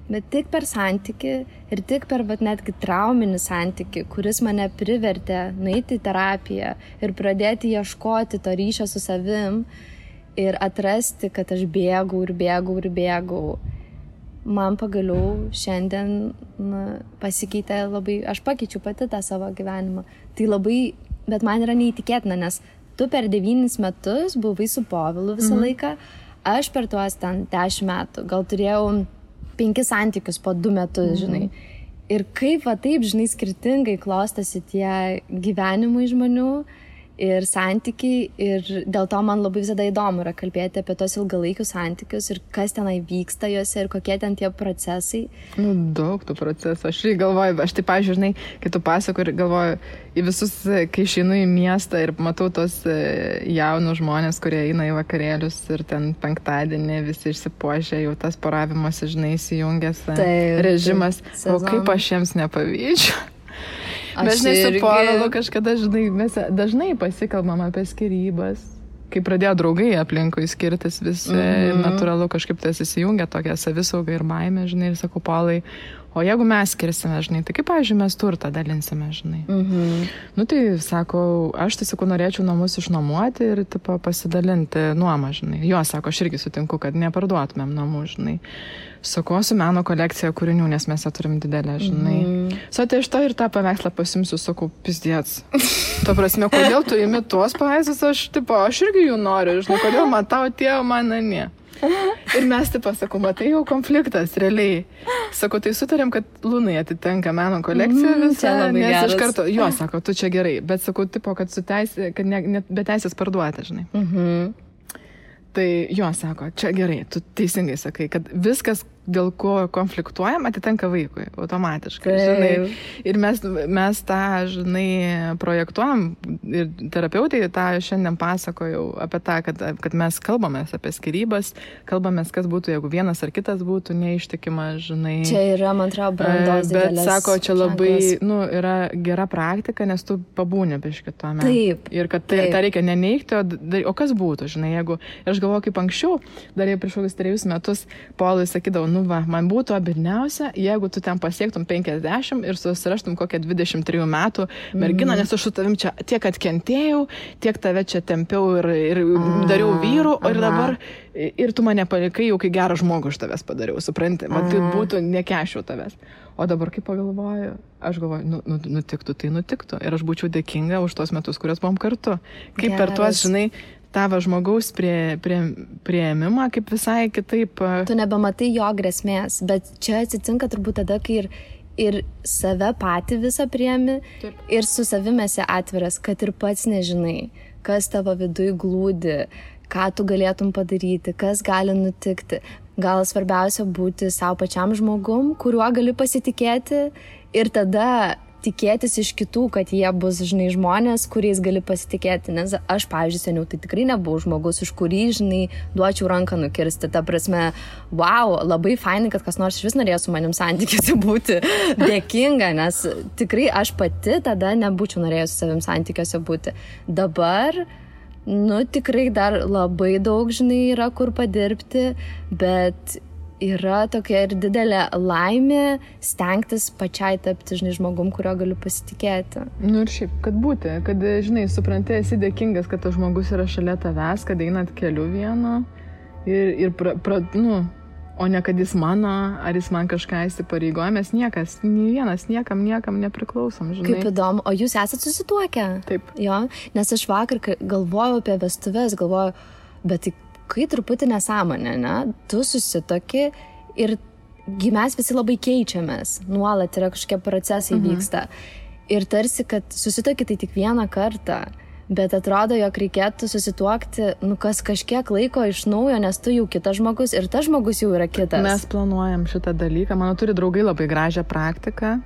Bet tik per santykį ir tik per netgi trauminį santykį, kuris mane privertė nueiti į terapiją ir pradėti ieškoti to ryšio su savim ir atrasti, kad aš bėgau. Man pagaliau šiandien pasikeitė labai, aš pakeičiu pati tą savo gyvenimą. Tai labai, bet man yra neįtikėtina, nes tu per 9 metus buvai su Povilu visą laiką, aš per tuos ten 10 metų, gal turėjau 5 santykius po 2 metus, žinai. Ir kaip taip, žinai, skirtingai klostosi tie gyvenimai žmonių ir santykiai. Ir dėl to man labai visada įdomu yra kalbėti apie tos ilgalaikius santykius ir kas tenai vyksta juose ir kokie ten tie procesai. Daug tų procesų. Aš galvoju, aš taip, žinai, kai tu pasakoji ir galvoju į visus, kai išeinu į miestą ir matau tos jaunus žmonės, kurie eina į vakarėlius ir ten penktadienį visi išsipuošę, jau tas poravimosi, žinai, įsijungęs režimas. O kaip aš jiems nepavydžiu. Bet žinai, su Povilu kažkada, žinai, mes dažnai pasikalbam apie skyrybas. Kai pradėjo draugai aplinkui skirtis visi, natūralu kažkaip tas įsijungia tokia savisauga ir baimė, žinai, ir sakau, Paulai, o jeigu mes skirsime, žinai, tai kaip, pavyzdžiui, mes turtą dalinsime, žinai. Nu tai, sakau, aš tai, sakau, norėčiau namus išnuomoti ir, tipo, pasidalinti nuomą, žinai. Jo, sako, aš irgi sutinku, kad neparduotumėm namų, žinai. Sakau, su meno kolekcija kūrinių, nes mes ją turim didelę, žinai. Tai iš to ir tą paveikslą pasimsiu, sakau, pizdėts. Tuo prasme, kodėl tu imi tuos paveikslus, aš irgi jų noriu, žinai, kodėl man tau atėjo, man ne. Ir mes, sakau, matai jau konfliktas, realiai. Sakau, tai sutarėm, kad Lunai atitenka meno kolekcija visą, nes iš karto, jo, sako, tu čia gerai, bet sakau, kad su teisė, kad be teisės parduoti, žinai. Tai jo, sako, čia gerai, tu teisingai sakai, kad viskas, dėl ko konfliktuojam, atitenka vaikui automatiškai, žinai. Ir mes tą, žinai, projektuojam ir terapeutai tą šiandien pasakojau apie tą, kad mes kalbamės apie skyrybas, kalbamės, kas būtų, jeigu vienas ar kitas būtų neištikimas, žinai. Čia yra, man atrodo, brandos didelės. Bet, sako, čia labai, yra gera praktika, nes tu pabūni biškį tuome. Taip. Ir kad tą reikia neneigti, o kas būtų, žinai, jeigu, aš galvoju, kaip anksčiau, dar jau prieš kokius 3 metus, Paului sakydavau, man būtų abidniausia, jeigu tu ten pasiektum 50 ir susiraštum kokią 23 metų merginą, nes aš su tavim čia tiek atkentėjau, tiek tave čia tempiau ir dariau vyrų, ir dabar, ir tu mane palikai, jau kai gerą žmogų iš tavęs padariau, supranti, man tai būtų nekešiau tavęs. O dabar, kai pagalvoju, aš galvoju, nutiktų, tai nutiktų. Ir aš būčiau dėkinga už tos metus, kurios buvom kartu. Kaip per tuos, žinai, tavo žmogaus priėmimą, kaip visai kitaip. Tu nebematai jo grėsmės, bet čia atsitinka turbūt tada, kai ir save patį visą priėmi, ir su savimi esi atviras, kad ir pats nežinai, kas tavo viduj glūdi, ką tu galėtum padaryti, kas gali nutikti. Gal svarbiausia būti savo pačiam žmogum, kuriuo gali pasitikėti ir tada tikėtis iš kitų, kad jie bus, žinai, žmonės, kuriais gali pasitikėti. Nes aš, pavyzdžiui, seniau tai tikrai nebuvau žmogus, už kurį, žinai, duočiau ranką nukirsti. Ta prasme, wow, labai fainai, kad kas nors iš vis norėjo su manim santykiuose būti dėkinga, nes tikrai aš pati tada nebūčiau norėjus su savim santykiuose būti. Dabar, tikrai dar labai daug, žinai, yra kur padirbti, bet yra tokia ir didelė laimė stengtis pačiai tapti, žinai, žmogum, kurio galiu pasitikėti. Ir šiaip, kad būti, kad, žinai, supranti, esi dėkingas, kad tas žmogus yra šalia tavęs, kad einat keliu vienu o ne kad jis mano, ar jis man kažką įsipareigoja, mes niekas, nei vienas, niekam nepriklausom, žinai. Kaip įdomu, o jūs esat susituokę? Taip. Jo, nes aš vakar galvojau apie vestuves, bet tai kai truputį nesąmonė, ne? Tu susitoki ir mes visi labai keičiamės, nuolat yra kažkokie procesai vyksta. Ir tarsi, kad susitoki tai tik vieną kartą, Bet atrodo, jog reikėtų susituokti, kas kažkiek laiko iš naujo, nes tu jau kitas žmogus ir tas žmogus jau yra kitas. Mes planuojam šitą dalyką. Mano turi draugai labai gražią praktiką.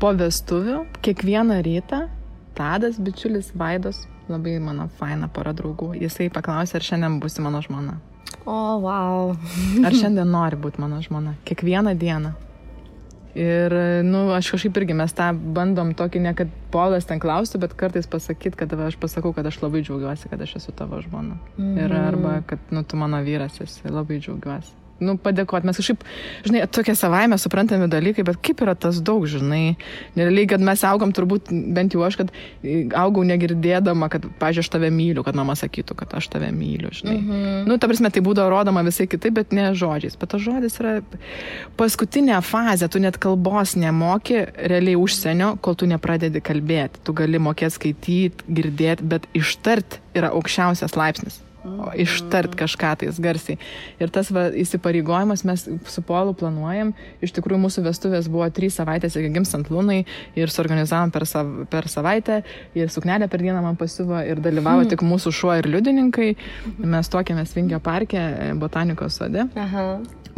Po vestuvių, kiekvieną rytą, Tadas, bičiulis Vaidos, labai mano faina pora draugų, jisai paklausė, ar šiandien būsi mano žmona. O, wow. Ar šiandien nori būti mano žmona. Kiekvieną dieną. Ir, aš kažkaip irgi mes tą bandom tokį, ne kad Polas ten klaustų, bet kartais pasakyti, kad aš pasakau, kad aš labai džiaugiuosi, kad aš esu tavo žmona. Ir arba, kad, tu mano vyras esi, labai džiaugiuosi. Padėkoti. Mes kažkaip, žinai, tokie savaime suprantami dalykai, bet kaip yra tas daug, žinai. Nerealiai, kad mes augom, turbūt, bent jau aš, kad augau negirdėdama, kad, pažiūrėjau, aš tave myliu, kad mama sakytų, kad aš tave myliu, žinai. Ta prasme, tai būdavo rodoma visai kitaip, bet ne žodžiais. Bet tas žodis yra paskutinė fazė, tu net kalbos nemoki realiai užsienio, kol tu nepradedi kalbėti. Tu gali mokėti skaityti, girdėti, bet ištart yra aukščiausias laipsnis. Ištart kažką tais garsiai. Ir tas įsipareigojimas mes su Polu planuojam. Iš tikrųjų, mūsų vestuvės buvo 3 savaitės iki gimstant Lunai ir suorganizavom per savaitę ir suknelę per dieną man pasiuvo ir dalyvavo tik mūsų šuo ir liudininkai. Mes tuokėmės Vingio parke, botanikos sode.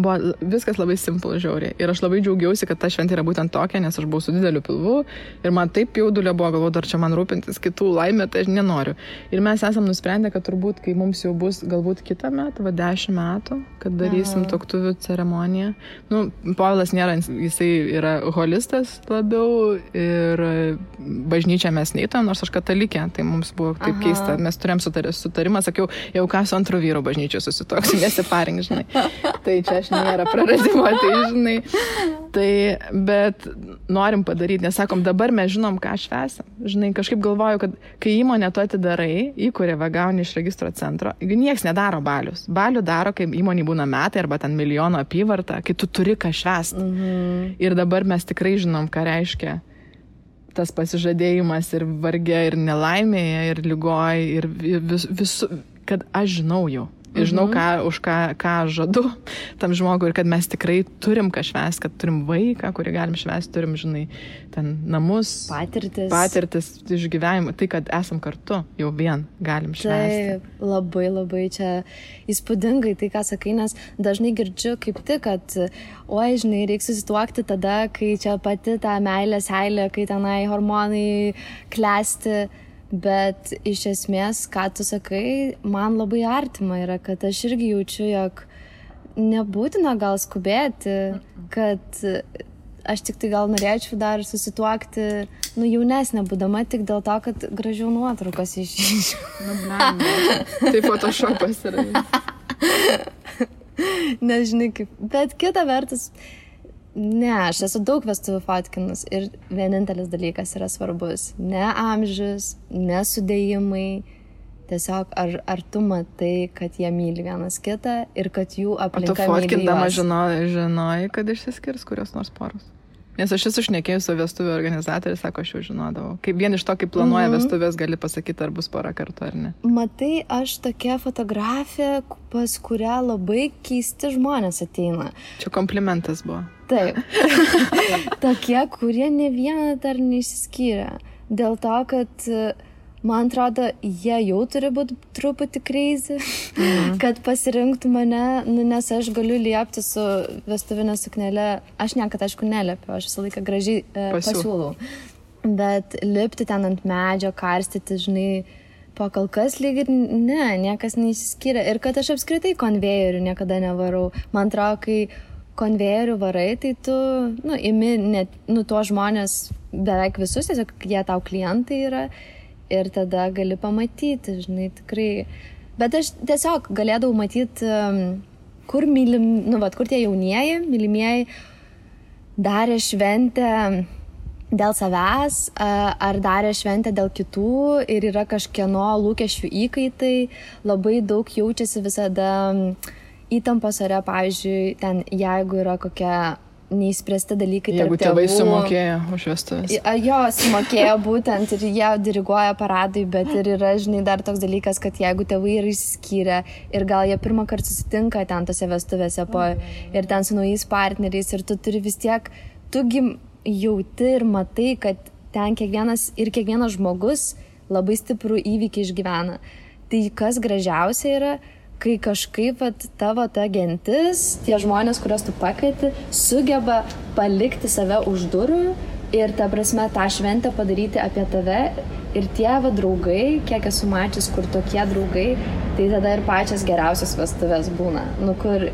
Buvo viskas labai simple, žiauriai. Ir aš labai džiaugiausi, kad ta šventė yra būtent tokia, nes aš buvau su dideliu pilvu ir man taip jaudulio buvo, galvoju, dar čia man rūpintis kitų laimė, tai aš nenoriu. Ir mes esam nusprendę, kad turbūt, kai mums jau bus galbūt kitą metą, 10 metų, kad darysim tuoktuvių ceremoniją. Povilas nėra, jisai yra holistas labiau ir bažnyčią mes neįtojom, nors aš katalikė, tai mums buvo taip keista. Mes turėjom sutarimą, sakiau, jau ką su antru vyru bažnyčiu susitoksiu, nesiparink, žinai. Tai čia aš nėra praradimo, tai žinai. Tai, bet norim padaryti, nes sakom, dabar mes žinom, ką švęsim. Žinai, kažkaip galvoju, kad kai įmonę tu atidarai, įkuria gauni iš registro centro, nieks nedaro balius. Balių daro, kai įmonė būna metai arba ten milijono apyvarta, kai tu turi ką švęsti. Ir dabar mes tikrai žinom, ką reiškia tas pasižadėjimas ir varge, ir nelaimėje, ir lygoj, ir visų, kad aš žinau jau. Ir žinau, už ką žadu tam žmogui ir kad mes tikrai turim ką švęsti, kad turim vaiką, kurį galim švęsti, turim, žinai, ten namus, patirtis išgyvenimą, tai, kad esam kartu, jau vien galim švęsti. Taip, labai, labai čia įspūdingai tai, ką sakai, nes dažnai girdžiu kaip tik, kad, žinai, reikia susituokti tada, kai čia pati ta meilė seilė, kai tenai hormonai klesti. Bet iš esmės, ką tu sakai, man labai artima yra, kad aš irgi jaučiu, jog nebūtina gal skubėti, kad aš tik tai gal norėčiau dar susituokti, jaunesnė būdama tik dėl to, kad gražiau nuotraukas išžiūrėčiau. Tai photoshopas yra. Nežinai kaip, bet kita vertus, ne, aš esu daug vestuvių fotkinus ir vienintelis dalykas yra svarbus. Ne amžius, ne sudėjimai, tiesiog ar tu matai, kad jie myli vienas kitą ir kad jų aplinka myli juos. O tu fotkindama žinojai, kad išsiskirs kurios nors poros? Nes aš esu šnekėjus su vestuvių organizatoriai, sako, aš jau žinodavau. Kaip vien iš to, kaip planuoja vestuvės, gali pasakyti, ar bus pora kartų ar ne. Matai, aš tokia fotografė, pas kurią labai keisti žmonės ateina. Čia komplimentas buvo. Taip. Tokie, kurie ne vieną dar neišsiskyrė. Dėl to, kad man atrodo, jie jau turi būti truputį crazy, kad pasirinktų mane, nes aš galiu liepti su vestuvinė suknelė. Aš niekad, aišku, neliepiu, aš visą laiką gražiai pasiūlau. Bet lipti ten ant medžio, karstyti, žinai, pakalkas lyg ir niekas neišsiskyrė. Ir kad aš apskritai konvejerių niekada nevarau. Man atrodo, kai konvejerių varai, tai tu, imi tuos žmonės beveik visus, tiesiog jie tau klientai yra. Ir tada gali pamatyti, žinai, tikrai. Bet aš tiesiog galėdavau matyti, kur kur tie jaunieji, mylimieji darė šventę dėl savęs, ar darė šventę dėl kitų ir yra kažkieno lūkesčių įkaitai. Labai daug jaučiasi visada įtampos ore, pavyzdžiui, ten jeigu yra kokia neįspręsti dalykai tarp tėvų. Jeigu tėvai sumokėjo už vestuvės. Jo, sumokėjo būtent ir jie diriguoja paradui, bet ir yra, žinai, dar toks dalykas, kad jeigu tėvai yra išsiskyrę ir gal jie pirmą kartą susitinka ten tose vestuvėse ir ten su naujais partneriais ir tu turi vis tiek, tugi jauti ir matai, kad ten kiekvienas žmogus labai stiprų įvykį išgyvena. Tai kas gražiausia yra, kai kažkaip tavo ta gentis, tie žmonės, kuriuos tu pakvieti, sugeba palikti save už durų ir ta prasme tą šventę padaryti apie tave. Ir tie draugai, kiek esu mačius, kur tokie draugai, tai tada ir pačias geriausias vestuvės būna. Kur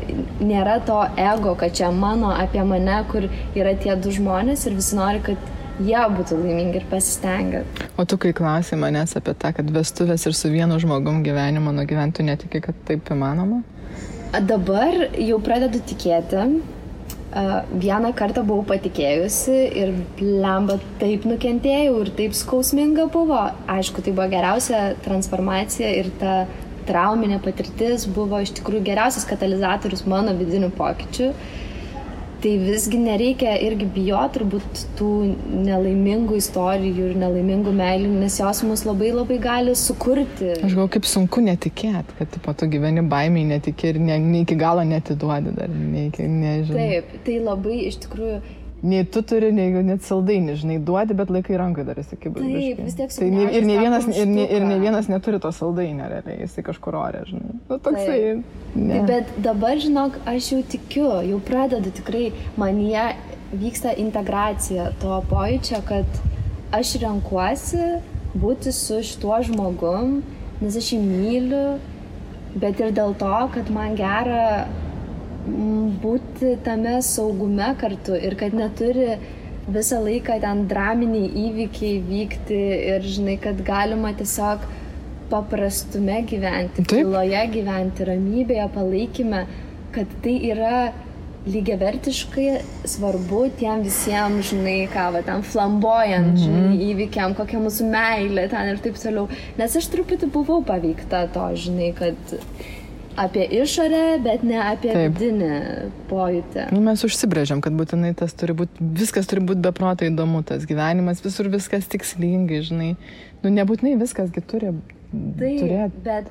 nėra to ego, kad čia mano apie mane, kur yra tie du žmonės ir visi nori, kad jie būtų laimingi ir pasistengia. O tu kai klausai manęs apie tą, kad vestuvės ir su vienu žmogum gyvenimą nugyventų, netiki, kad taip įmanoma? Dabar jau pradedu tikėti. Vieną kartą buvau patikėjusi ir blemba taip nukentėjau ir taip skausminga buvo. Aišku, tai buvo geriausia transformacija ir ta trauminė patirtis buvo iš tikrųjų geriausias katalizatorius mano vidinių pokyčių. Tai visgi nereikia irgi bijoti turbūt tų nelaimingų istorijų ir nelaimingų meilių, nes jos mus labai labai gali sukurti. Aš galvoju, kaip sunku netikėti, kad tu gyveni baimiai netikė ir ne iki galo netiduodi dar, nežinau. Taip, tai labai iš tikrųjų... Nei tu turi, nei net saldainį, žinai, duodi, bet laikai rankai dar esi kaip biškai. Taip, vis tiek tai ir ne vienas neturi to saldainio, realiai, jisai kažkur orė, žinai. Nu, toksai... Tai, bet dabar, žinok, aš jau tikiu, jau pradedu tikrai, manyje vyksta integracija to pojūčio, kad aš renkuosi būti su šituo žmogum, nes aš jį myliu, bet ir dėl to, kad man gera būti tame saugume kartu ir kad neturi visą laiką ten draminiai įvykiai vykti ir žinai, kad galima tiesiog paprastume gyventi, tyloje gyventi, ramybėje, palaikyme, kad tai yra lygiavertiškai svarbu tiem visiems, žinai, ten flamboyant, žinai, įvykiam, kokia mūsų meilė ten ir taip toliau. Nes aš truputį buvau paveikta to, žinai, kad apie išorę, bet ne apie vidinį pojūtį. Mes užsibrėžiam, kad būtinai tas turi būti, viskas turi būti beprotai įdomu, tas gyvenimas, visur viskas tikslingai, žinai. Nebūtinai viskasgi turi turėti. Bet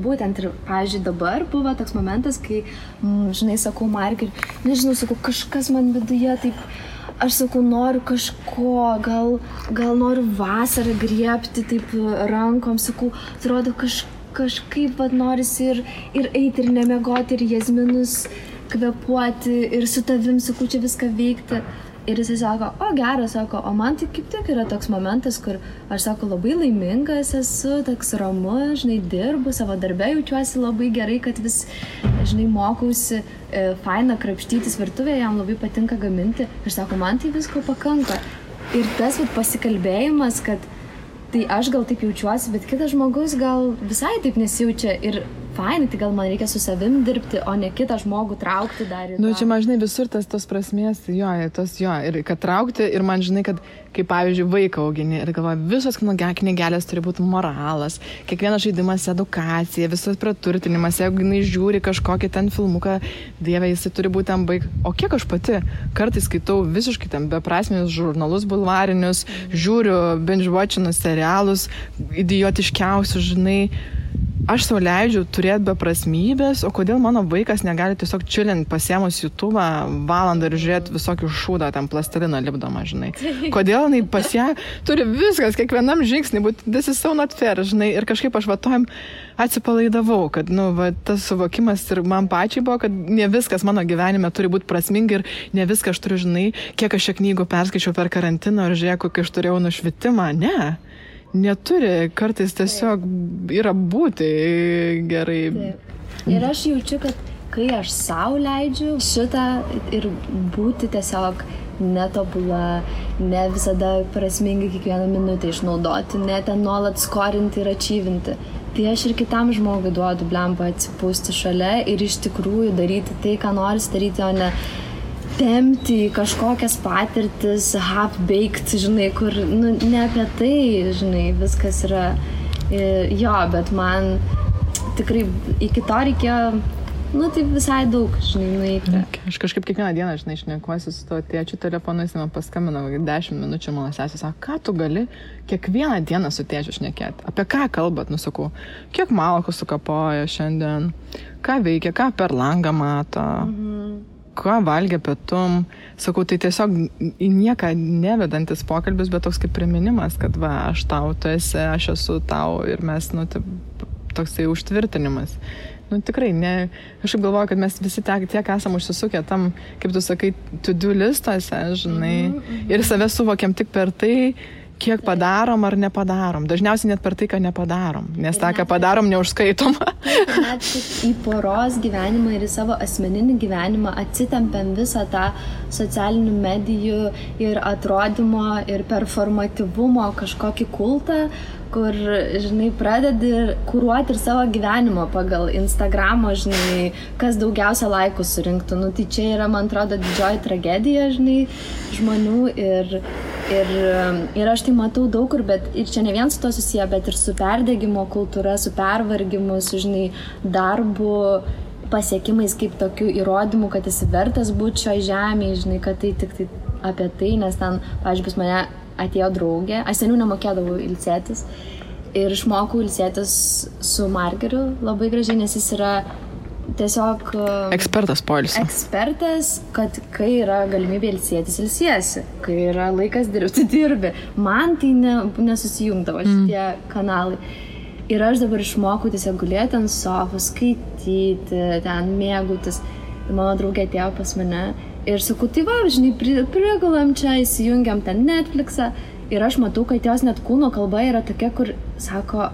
būtent ir, pavyzdžiui, dabar buvo toks momentas, kai, žinai, sakau, Markai, nežinau, sakau, kažkas man viduje taip, aš sakau, noriu kažko, gal noriu vasarą griebti taip rankom, sakau, atrodo kažkaip norisi ir eiti, ir nemiegoti, ir jazminus kvepuoti, ir su tavim, sakau, čia viską veikti. Ir jisai sako, geras, sako, o man tai kaip tik yra toks momentas, kur aš, sako, labai laimingas esu, toks ramus, žinai, dirbu, savo darbe jaučiuosi labai gerai, kad vis, žinai, mokausi faina krapštytis virtuvėje, jam labai patinka gaminti. Ir sako, man tai visko pakanka. Ir tas pasikalbėjimas, kad tai aš gal taip jaučiuosi, bet kitas žmogus gal visai taip nesijaučia ir fainai, tai gal man reikia su savim dirbti, o ne kitą žmogų traukti dar į tą. Čia man, žinai, visur tos prasmės, ir kad traukti, ir man, žinai, kad kaip, pavyzdžiui, vaiką augini ir galvoju, visos knygelės turi būti moralas, kiekvienas žaidimas edukacija, visas praturtinimas, jeigu jinai žiūri kažkokį ten filmuką, dieve, jisai turi būti ten o kiek aš pati kartais skaitau visiškai ten beprasminius žurnalus bulvarinius, žiūriu binge-watchinus serialus, idiotiškiausius, žinai. Aš sau leidžiu turėti beprasmybės, o kodėl mano vaikas negali tiesiog chillint pasiėmus YouTube'ą valandą ir žiūrėti visokių šūdą, ten plastiliną lipdomą, žinai. Kodėl jinai pas ją turi viskas, kiekvienam žingsnį, but this is so not fair, žinai. Ir kažkaip aš tojim atsipalaidavau, kad, tas suvokimas ir man pačiai buvo, kad ne viskas mano gyvenime turi būti prasminga ir ne viską aš turiu, žinai, kiek aš šią knygų perskaičiau per karantiną ir žiūrėjau, kokį aš turėjau nušvitimą. Ne. Neturi, kartais tiesiog yra būti gerai. Taip. Ir aš jaučiu, kad kai aš sau leidžiu šitą ir būti tiesiog netobula, ne visada prasmingai kiekvieną minutę išnaudoti, ne ten nuolat skorinti ir ačyvinti, tai aš ir kitam žmogui duodu blemba atsipūsti šalia ir iš tikrųjų daryti tai, ką nori daryti, o ne tempti kažkokias patirtis, half-baked, žinai, kur, ne apie tai, žinai, viskas yra, bet man tikrai iki to reikėjo, tai visai daug, žinai, nueiti. Aš kažkaip kiekvieną dieną, žinai, šnekuosi su to tėčiu telefonu, jis man paskambino 10 minučių, mano sesė sako, ką tu gali kiekvieną dieną su tėčiu šnekėti? Apie ką kalbat, sakau, kiek malkų sukapoja šiandien, ką veikia, ką per langą mato. ką valgė pietum. Sakau, tai tiesiog į nieką nevedantis pokalbis, bet toks kaip priminimas, kad va, aš tau, tu esi, aš esu tau ir mes, toksai užtvirtinimas. Tikrai, aš galvoju, kad mes visi tiek esam užsisukę tam, kaip tu sakai, to-do listuose, žinai, ir save suvokiam tik per tai, kiek padarom ar nepadarom. Dažniausiai net per tai, ką nepadarom, nes tą, ką padarom, neužskaitom. Net į poros gyvenimą ir į savo asmeninį gyvenimą atsitempiam visą tą socialinių medijų ir atrodymo ir performatyvumo kažkokį kultą, kur, žinai, pradedi kuruoti ir savo gyvenimo pagal Instagramo, žinai, kas daugiausia laikų surinktų. Tai čia yra, man atrodo, didžioji tragedija, žinai, žmonių ir aš tai matau daug kur, bet ir čia ne vien su to susiję, bet ir su perdegimo kultūra, su pervargimu, su, žinai, darbu, pasiekimais kaip tokių įrodymų, kad esi vertas būti šioje žemėje, žinai, kad tai tik tai apie tai, nes ten, pavyzdžiui, pas mane atėjo draugė, aš seniau nemokėdavau ilsėtis ir išmokau ilsėtis su margeriu labai gražiai, nes jis yra tiesiog ekspertas poilsio. Ekspertas, kad kai yra galimybė ilsėtis, ilsiesi, kai yra laikas dirbti, dirbi. Man tai nesusijungdavo šitie kanalai. Ir aš dabar išmokau tiesiog gulėti ant sofos, skaityti, ten mėgautis. Ir mano draugė atėjo pas mane ir sakau, tai va, žinai, prigulam čia, įsijungiam ten Netflixą. Ir aš matau, kad jos net kūno kalba yra tokia, kur, sako,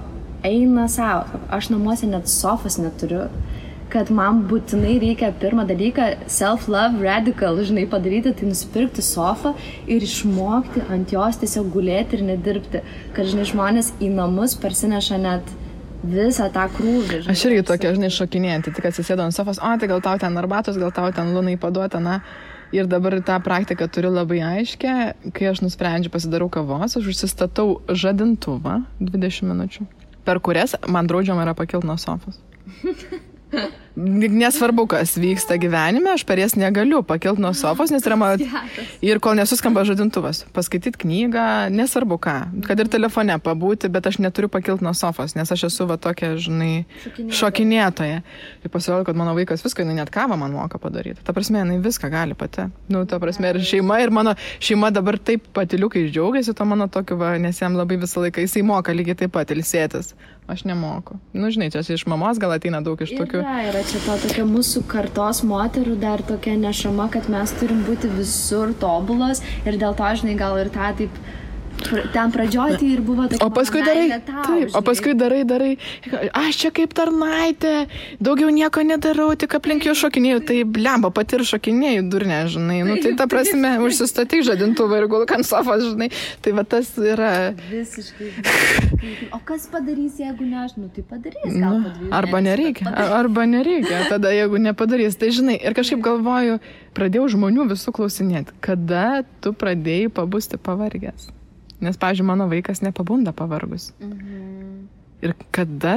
eina savo. Aš namuose net sofos neturiu. Kad man būtinai reikia pirmą dalyką self-love radical, žinai, padaryti, tai nusipirkti sofą ir išmokti ant jos tiesiog gulėti ir nedirbti. Kad, žinai, žmonės į namus parsineša net visą tą krūvį. Žinai, aš irgi tokia, žinai, šokinėjantį, tik atsisėdau ant sofos, tai gal tau ten arbatos, gal tau ten lunai paduota, Ir dabar tą praktiką turiu labai aiškę, kai aš nusprendžiu pasidarau kavos, aš užsistatau žadintuvą 20 minučių, per kurias man draudžiama yra pakilti nuo sofos. Nesvarbu, kas vyksta gyvenime, aš per jas negaliu pakilti nuo sofos, nes yra mano... Ir kol nesuskamba žadintuvas, paskaityti knygą, nesvarbu ką, kad ir telefone pabūti, bet aš neturiu pakilti nuo sofos, nes aš esu va tokia, žinai, šokinėtoja. Ir pasirodo, kad mano vaikas viską, jinai net kavą man moka padaryti. Ta prasme, jinai viską gali pati. Ta prasme, ir mano šeima dabar taip patiliukai džiaugiasi, to mano tokiu, nes jam labai visą laiką, jisai moka lygiai taip pat ilsėtis. Aš nemoku. Žinai, čia iš mamos gal ateina daug iš tokių... Yra čia to tokia mūsų kartos moterų dar tokia nešama, kad mes turim būti visur tobulos ir dėl to, žinai, gal ir tą taip ten pradžioj tai ir buvo tokia... O paskui darai, aš čia kaip tarnaitė, daugiau nieko nedarau, tik aplink jų šokinėjau, tai blemba, pati ir šokinėjau, durnė, žinai, tai ta prasme, užsistatyk žadintuvą ir gulk ant sofos, žinai, tai va tas yra... Visiškai. O kas padarys, jeigu ne aš, tai padarys, gal padarys. Arba nereikia, tada jeigu nepadarys, tai žinai, ir kažkaip galvoju, pradėjau žmonių visų klausinėti, kada tu pradėjai pabusti pavargęs. Nes, pavyzdžiui, mano vaikas nepabunda pavargus. Ir kada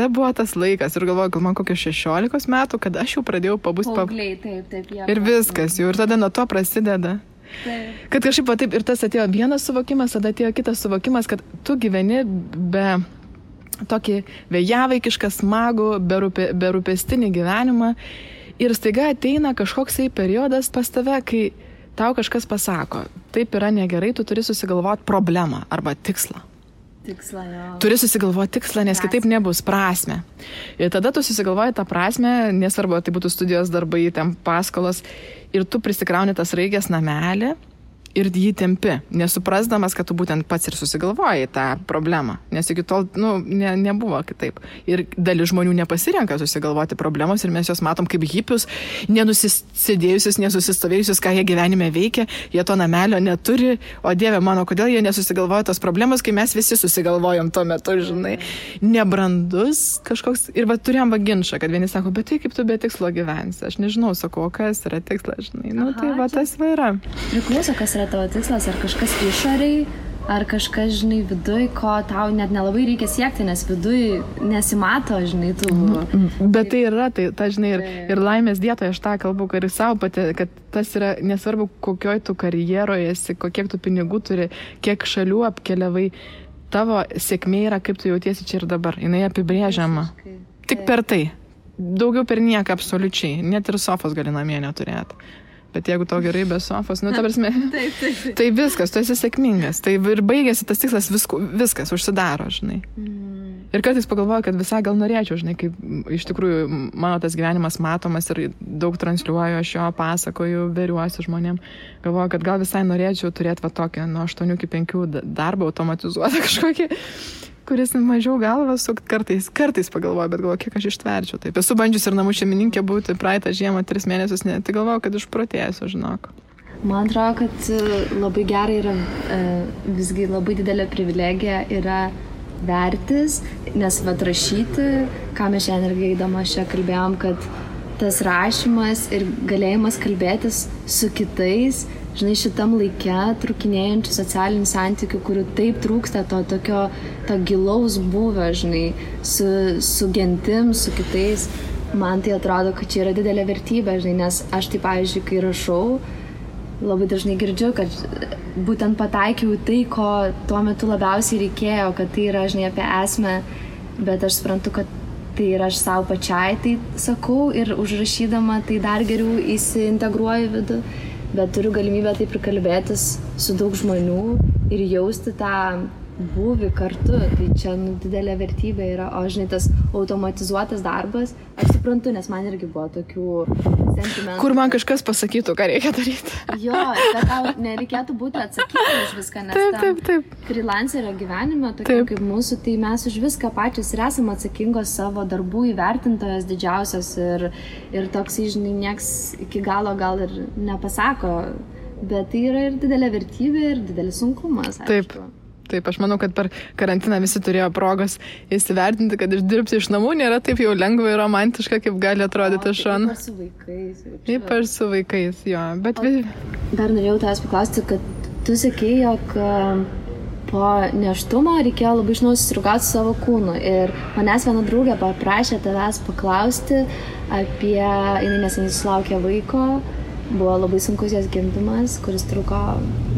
buvo tas laikas? Ir galvoju, gal man kokio 16 metų, kada aš jau pradėjau pabusti paaugliai, taip. Ir viskas jau. Ir tada nuo to prasideda. Taip. Kad kažkaip taip ir tas atėjo vienas suvokimas, tada atėjo kitas suvokimas, kad tu gyveni be tokį vėjavaikišką, smagų, berūpestinį gyvenimą. Ir staiga ateina kažkoksai periodas pas tave, kai tau kažkas pasako, taip yra negerai, tu turi susigalvoti problemą arba tikslą. Tikslą, jo. Turi susigalvoti tikslą, nes kitaip nebus prasmę. Ir tada tu susigalvoji tą prasmę, nesvarbu, tai būtų studijos darbai, ten paskolos, ir tu prisikrauni tas raigės namelį ir jį tempi, nesuprasdamas, kad tu būtent pats ir susigalvojai tą problemą, nes iki tol nebuvo kitaip. Ir dalis žmonių nepasirenka susigalvoti problemos ir mes juos matom kaip hipius, nenusisėdėjusius, nesusistovėjusius, ką jie gyvenime veikia, jie to namelio neturi, o Dieve mano, kodėl jie nesusigalvoja tos problemos, kai mes visi susigalvojom tuo metu, žinai, nebrandus kažkoks. Ir turėjom ginčą, kad vieni sako, bet tai kaip tu be tikslo gyvensi, aš nežinau, sakau, kas yra tikslas, žinai, tai tas yra. Priklauso, kas yra tavo tikslas, ar kažkas išoriai, ar kažkas, žinai, viduj, ko tau net nelabai reikia siekti, nes viduj nesimato, žinai, tų... Bet tai yra, ta, žinai, ir laimės dietoje aš tą kalbu, kad ir savo pati, kad tas yra nesvarbu, kokioj tu karjeroje esi, kiek tu pinigų turi, kiek šalių apkeliavai, tavo sėkmė yra, kaip tu jautiesi čia ir dabar, jinai apibrėžiama. Tik per tai. daugiau per nieką absoliučiai, net ir sofos gali namie neturėti. Bet jeigu tau gerai be sofos, nu, ta prasme, tai viskas, tu esi sėkmingas. Tai ir baigėsi tas tikslas, viskas užsidaro, žinai. Ir kartais pagalvoju, kad visai gal norėčiau, žinai, kaip iš tikrųjų mano tas gyvenimas matomas ir daug transliuoju, aš jo pasakoju, veriuosi žmonėm. Galvoju, kad gal visai norėčiau turėti va tokią nuo 8 iki 5 darbą automatizuotą kažkokį, kuris mažiau galvą sukt kartais pagalvoju, bet galvoju, kiek aš ištverčiau. Taip, esu bandžius ir namų šeimininkė būti praeitą žiemą 3 mėnesius, ne, tai galvoju, kad išprotėsiu, žinok. Man atrodo, kad labai gerai yra, visgi labai didelė privilegija yra vertis, nes rašyti, ką mes šiandien irgi eidama čia kalbėjom, kad tas rašymas ir galėjimas kalbėtis su kitais, žinai, šitam laike trukinėjančių socialinių santykių, kurių taip trūksta to gilaus buvio, žinai, su gentim, su kitais, man tai atrodo, kad čia yra didelė vertybė, žinai, nes aš tai, pavyzdžiui, kai rašau, labai dažnai girdžiu, kad būtent pataikiau tai, ko tuo metu labiausiai reikėjo, kad tai yra, žinai, apie esmę, bet aš suprantu, kad tai yra aš savo pačiai, tai sakau, ir užrašydama tai dar geriau įsiintegruoju vidų, bet turiu galimybę taip ir kalbėtis su daug žmonių ir jausti tą būvį kartu, tai čia didelė vertybė yra, o žinai, tas automatizuotas darbas, aš suprantu, nes man irgi buvo tokių sentimentų. Kur man kažkas pasakytų, ką reikia daryti. Jo, bet tau nereikėtų būti atsakyti už viską, nes taip. Freelancerio gyvenime, tokia kaip mūsų, tai mes už viską pačios ir esame atsakingos savo darbų įvertintojas didžiausias ir toks, žinai, nieks iki galo gal ir nepasako, bet tai yra ir didelė vertybė ir didelis sunkumas, aišku. Taip, aš manau, kad per karantiną visi turėjo progos įsivertinti, kad išdirbti iš namų nėra taip jau lengva ir romantiška, kaip gali atrodyti iš šono. Ypač su vaikais. Ypač su vaikais, jo. Bet dar norėjau tavęs paklausti, kad tu sakei, jog po nėštumo reikėjo labai iš naujo susidraugauti su savo kūnu. Ir manęs viena draugė paprašė tavęs paklausti apie, jinai neseniai sulaukė vaiko, buvo labai sunkus jos gimdymas, kuris truko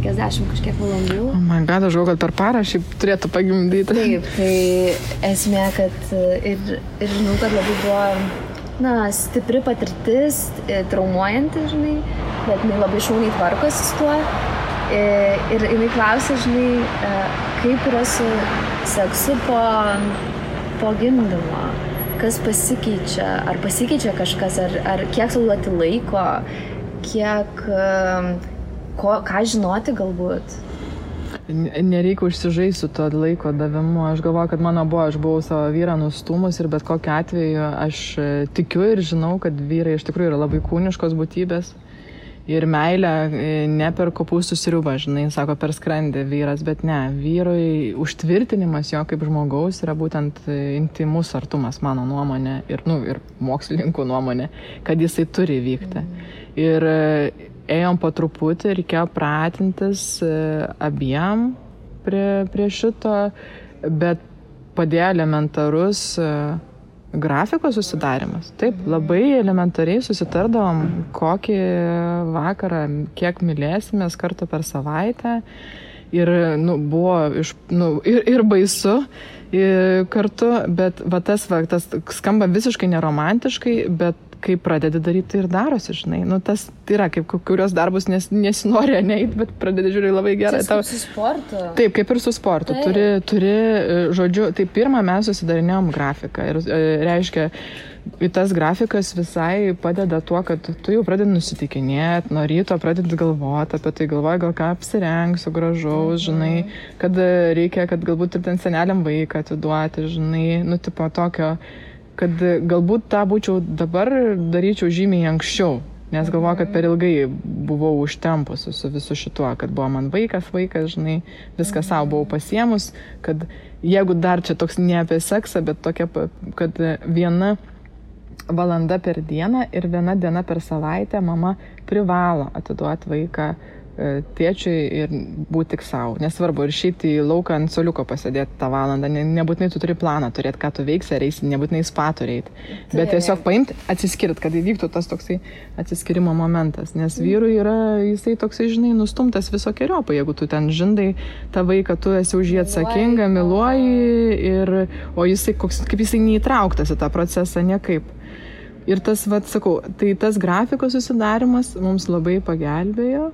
50 kažkiek valandų. Oh my God, aš galvoju, kad per parą šiaip turėtų pagimdyti. Taip, tai esmė, kad ir žinau, kad labai buvo, stipri patirtis, traumuojanti, žinai, bet jinai labai šauniai tvarkosi su tuo. Ir jinai klausė, žinai, kaip yra su seksu po gimdymo, kas pasikeičia, ar pasikeičia kažkas, ar kiek sau duoti laiko, kiek, ką žinoti galbūt. Nereikia užsižaisti su to laiko davimu. Aš galvoju, kad aš buvau savo vyrą nustūmus ir bet kokiu atveju aš tikiu ir žinau, kad vyrai iš tikrųjų yra labai kūniškos būtybės. Ir meilę ne per kopūstų sriubą, žinai, sako per skrandį vyras, bet ne, vyrui užtvirtinimas jo kaip žmogaus yra būtent intimus artumas, mano nuomonė, ir mokslininkų nuomonė, kad jisai turi vykti. Ir ėjom po truputį, reikėjo pratintis abiem prie šito, bet padėjo elementarus grafiko susidarimas. Taip, labai elementariai susitardavom, kokį vakarą, kiek mylėsimės kartą per savaitę. Ir buvo ir baisu kartu, bet tas skamba visiškai neromantiškai, bet kai pradedi daryti, tai ir darosi, žinai. Tas yra, kaip kurios darbus nesinori neiti, bet pradedi žiūrėti labai gerai. Kaip su sportu. Taip, kaip ir su sportu. Turi, žodžiu, tai pirmą mes susidarinėjom grafiką. Ir reiškia, tas grafikas visai padeda tuo, kad tu jau pradedi nusitikinėti, nuo ryto pradedi galvoti apie tai, galvoji, gal ką apsirengsiu gražaus, žinai, kad reikia, kad galbūt ir ten seneliam vaiką atiduoti, žinai, tipo tokio, kad galbūt tą būčiau dabar daryčiau žymiai anksčiau, nes galvoju, kad per ilgai buvau užtempusi su visu šituo, kad buvo man vaikas, žinai, viską savo buvau pasiemus, kad jeigu dar čia toks ne apie seksą, bet tokia, kad 1 valanda per dieną ir 1 diena per savaitę mama privalo atiduoti vaiką tėčiui ir būti tik savo. Nesvarbu, ir išeiti į lauką ant soliuko pasėdėti tą valandą. Nebūtinai tu turi planą turėti, ką tu veiksi, ar eisi, nebūtinai spa turėti. Bet tiesiog paimti, atsiskirti, kad įvyktų tas toksai atsiskirimo momentas. Nes vyrui yra, jisai toksai, žinai, nustumtas visokiojopai. Jeigu tu ten žindai tą vaiką, tu esi už jį atsakinga, myluoji, o jisai, kaip jisai neįtrauktas į tą procesą niekaip. Ir tas, sakau, tai tas grafikos susidarimas mums labai pagelbėjo.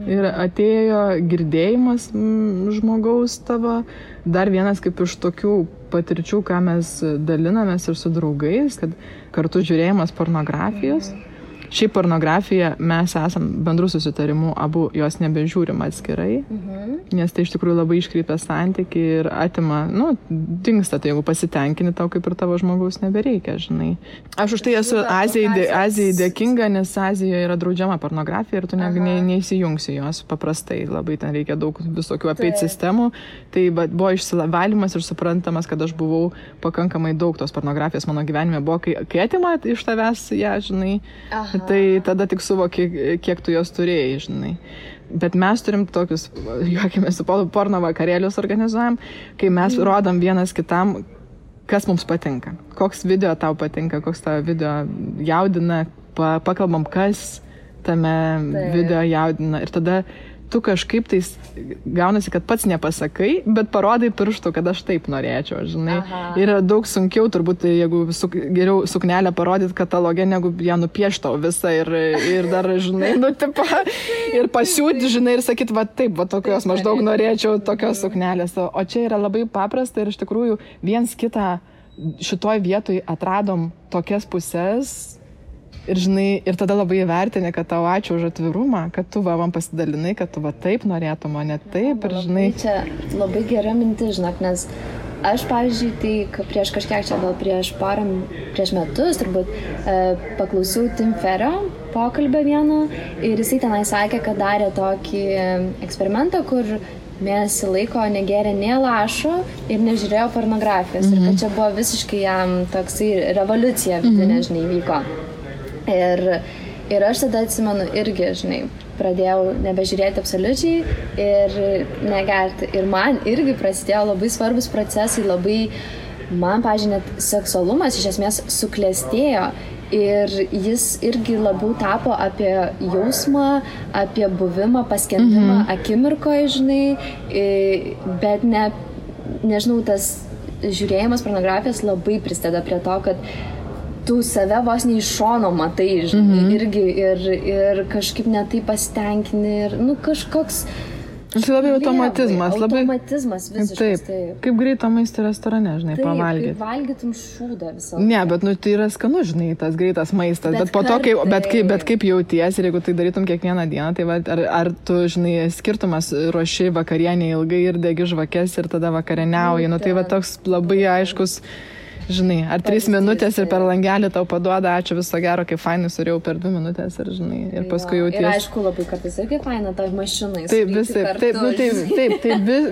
Ir atėjo girdėjimas žmogaus tavo. Dar vienas kaip iš tokių patirčių, ką mes dalinamės ir su draugais, kad kartu žiūrėjimas pornografijos. Šiaip pornografija mes esam bendrų susitarimų, abu jos nebežiūrim atskirai, nes tai iš tikrųjų labai iškreipia santykį ir atima, dingsta, tai jeigu pasitenkini, tau kaip ir tavo žmogaus nebereikia, žinai. Aš už tai esu Azijai dėkinga, nes Azijoje yra draudžiama pornografija ir tu neįsijungsi jos paprastai, labai ten reikia daug visokių apeit sistemų. Tai buvo išsivalymas ir suprantamas, kad aš buvau pakankamai daug tos pornografijos mano gyvenime buvo, kai atima iš tavęs ją, žinai. Tai tada tik suvoki, kiek tu jos turėjai, žinai. Bet mes turim tokius, juokime, su porno vakarėlius organizuojam, kai mes rodom vienas kitam, kas mums patinka. Koks video tau patinka, koks tavo video jaudina, pakalbam, kas tame video jaudina. Ir tada tu kažkaip tai gaunasi, kad pats nepasakai, bet parodai pirštų, kad aš taip norėčiau, žinai. Ir daug sunkiau turbūt, jeigu geriau suknelę parodyti kataloge, negu ją nupieštau visą ir dar, žinai, ir pasiūti, žinai, ir sakyti, taip, tokios maždaug norėčiau, tokios suknelės. O čia yra labai paprasta ir iš tikrųjų viens kitą šitoj vietoj atradom tokias pusės. Ir, žinai, ir tada labai įvertinė, kad tau ačiū už atvirumą, kad tu man pasidalinai, kad tu taip norėtum, o ne taip. Ir, žinai... Čia labai gera mintis, žinok, nes aš, pavyzdžiui, tai prieš kažkiek čia, gal prieš metus, turbūt, paklausiau Tim Ferrio pokalbio vieno ir jisai tenai sakė, kad darė tokį eksperimentą, kur mėnesį laiko negėrė nė lašo ir nežiūrėjo pornografijos. Ir kad čia buvo visiškai jam toksai revoliucija vidinė, žinai, vyko. Ir aš tada atsimenu irgi, žinai, pradėjau nebežiūrėti absoliučiai ir negerti. Ir man irgi prasidėjo labai svarbus procesai, man, pavyzdžiui, net seksualumas iš esmės suklestėjo. Ir jis irgi labiau tapo apie jausmą, apie buvimą, paskendimą akimirkoje, žinai, bet nežinau, tas žiūrėjimas pornografijos labai prisideda prie to, kad tu save vos ne iš šono matai, žinai, irgi ir kažkaip netai pasitenkini ir, kažkoks... Tai labai automatizmas. Automatizmas visiškas, taip. Kaip greito maisto restorane, žinai, pavalgyti. Taip, kaip valgytum šūdą visą. Ne, bet tai yra skanu, žinai, tas greitas maistas. Bet po to, kaip jauties ir jeigu tai darytum kiekvieną dieną, tai ar tu, žinai, skirtumas ruoši vakarienę ilgai ir degi žvakes ir tada vakarieniauji. Tai toks labai aiškus... Žinai, ar 3 minutės ir per langelį tau paduoda, ačiū, viso gero, kaip fainai surėjau per 2 minutės ir, žinai, ir paskui jauties. Ir aišku, labai kartais irgi faina toj mašinai. Taip,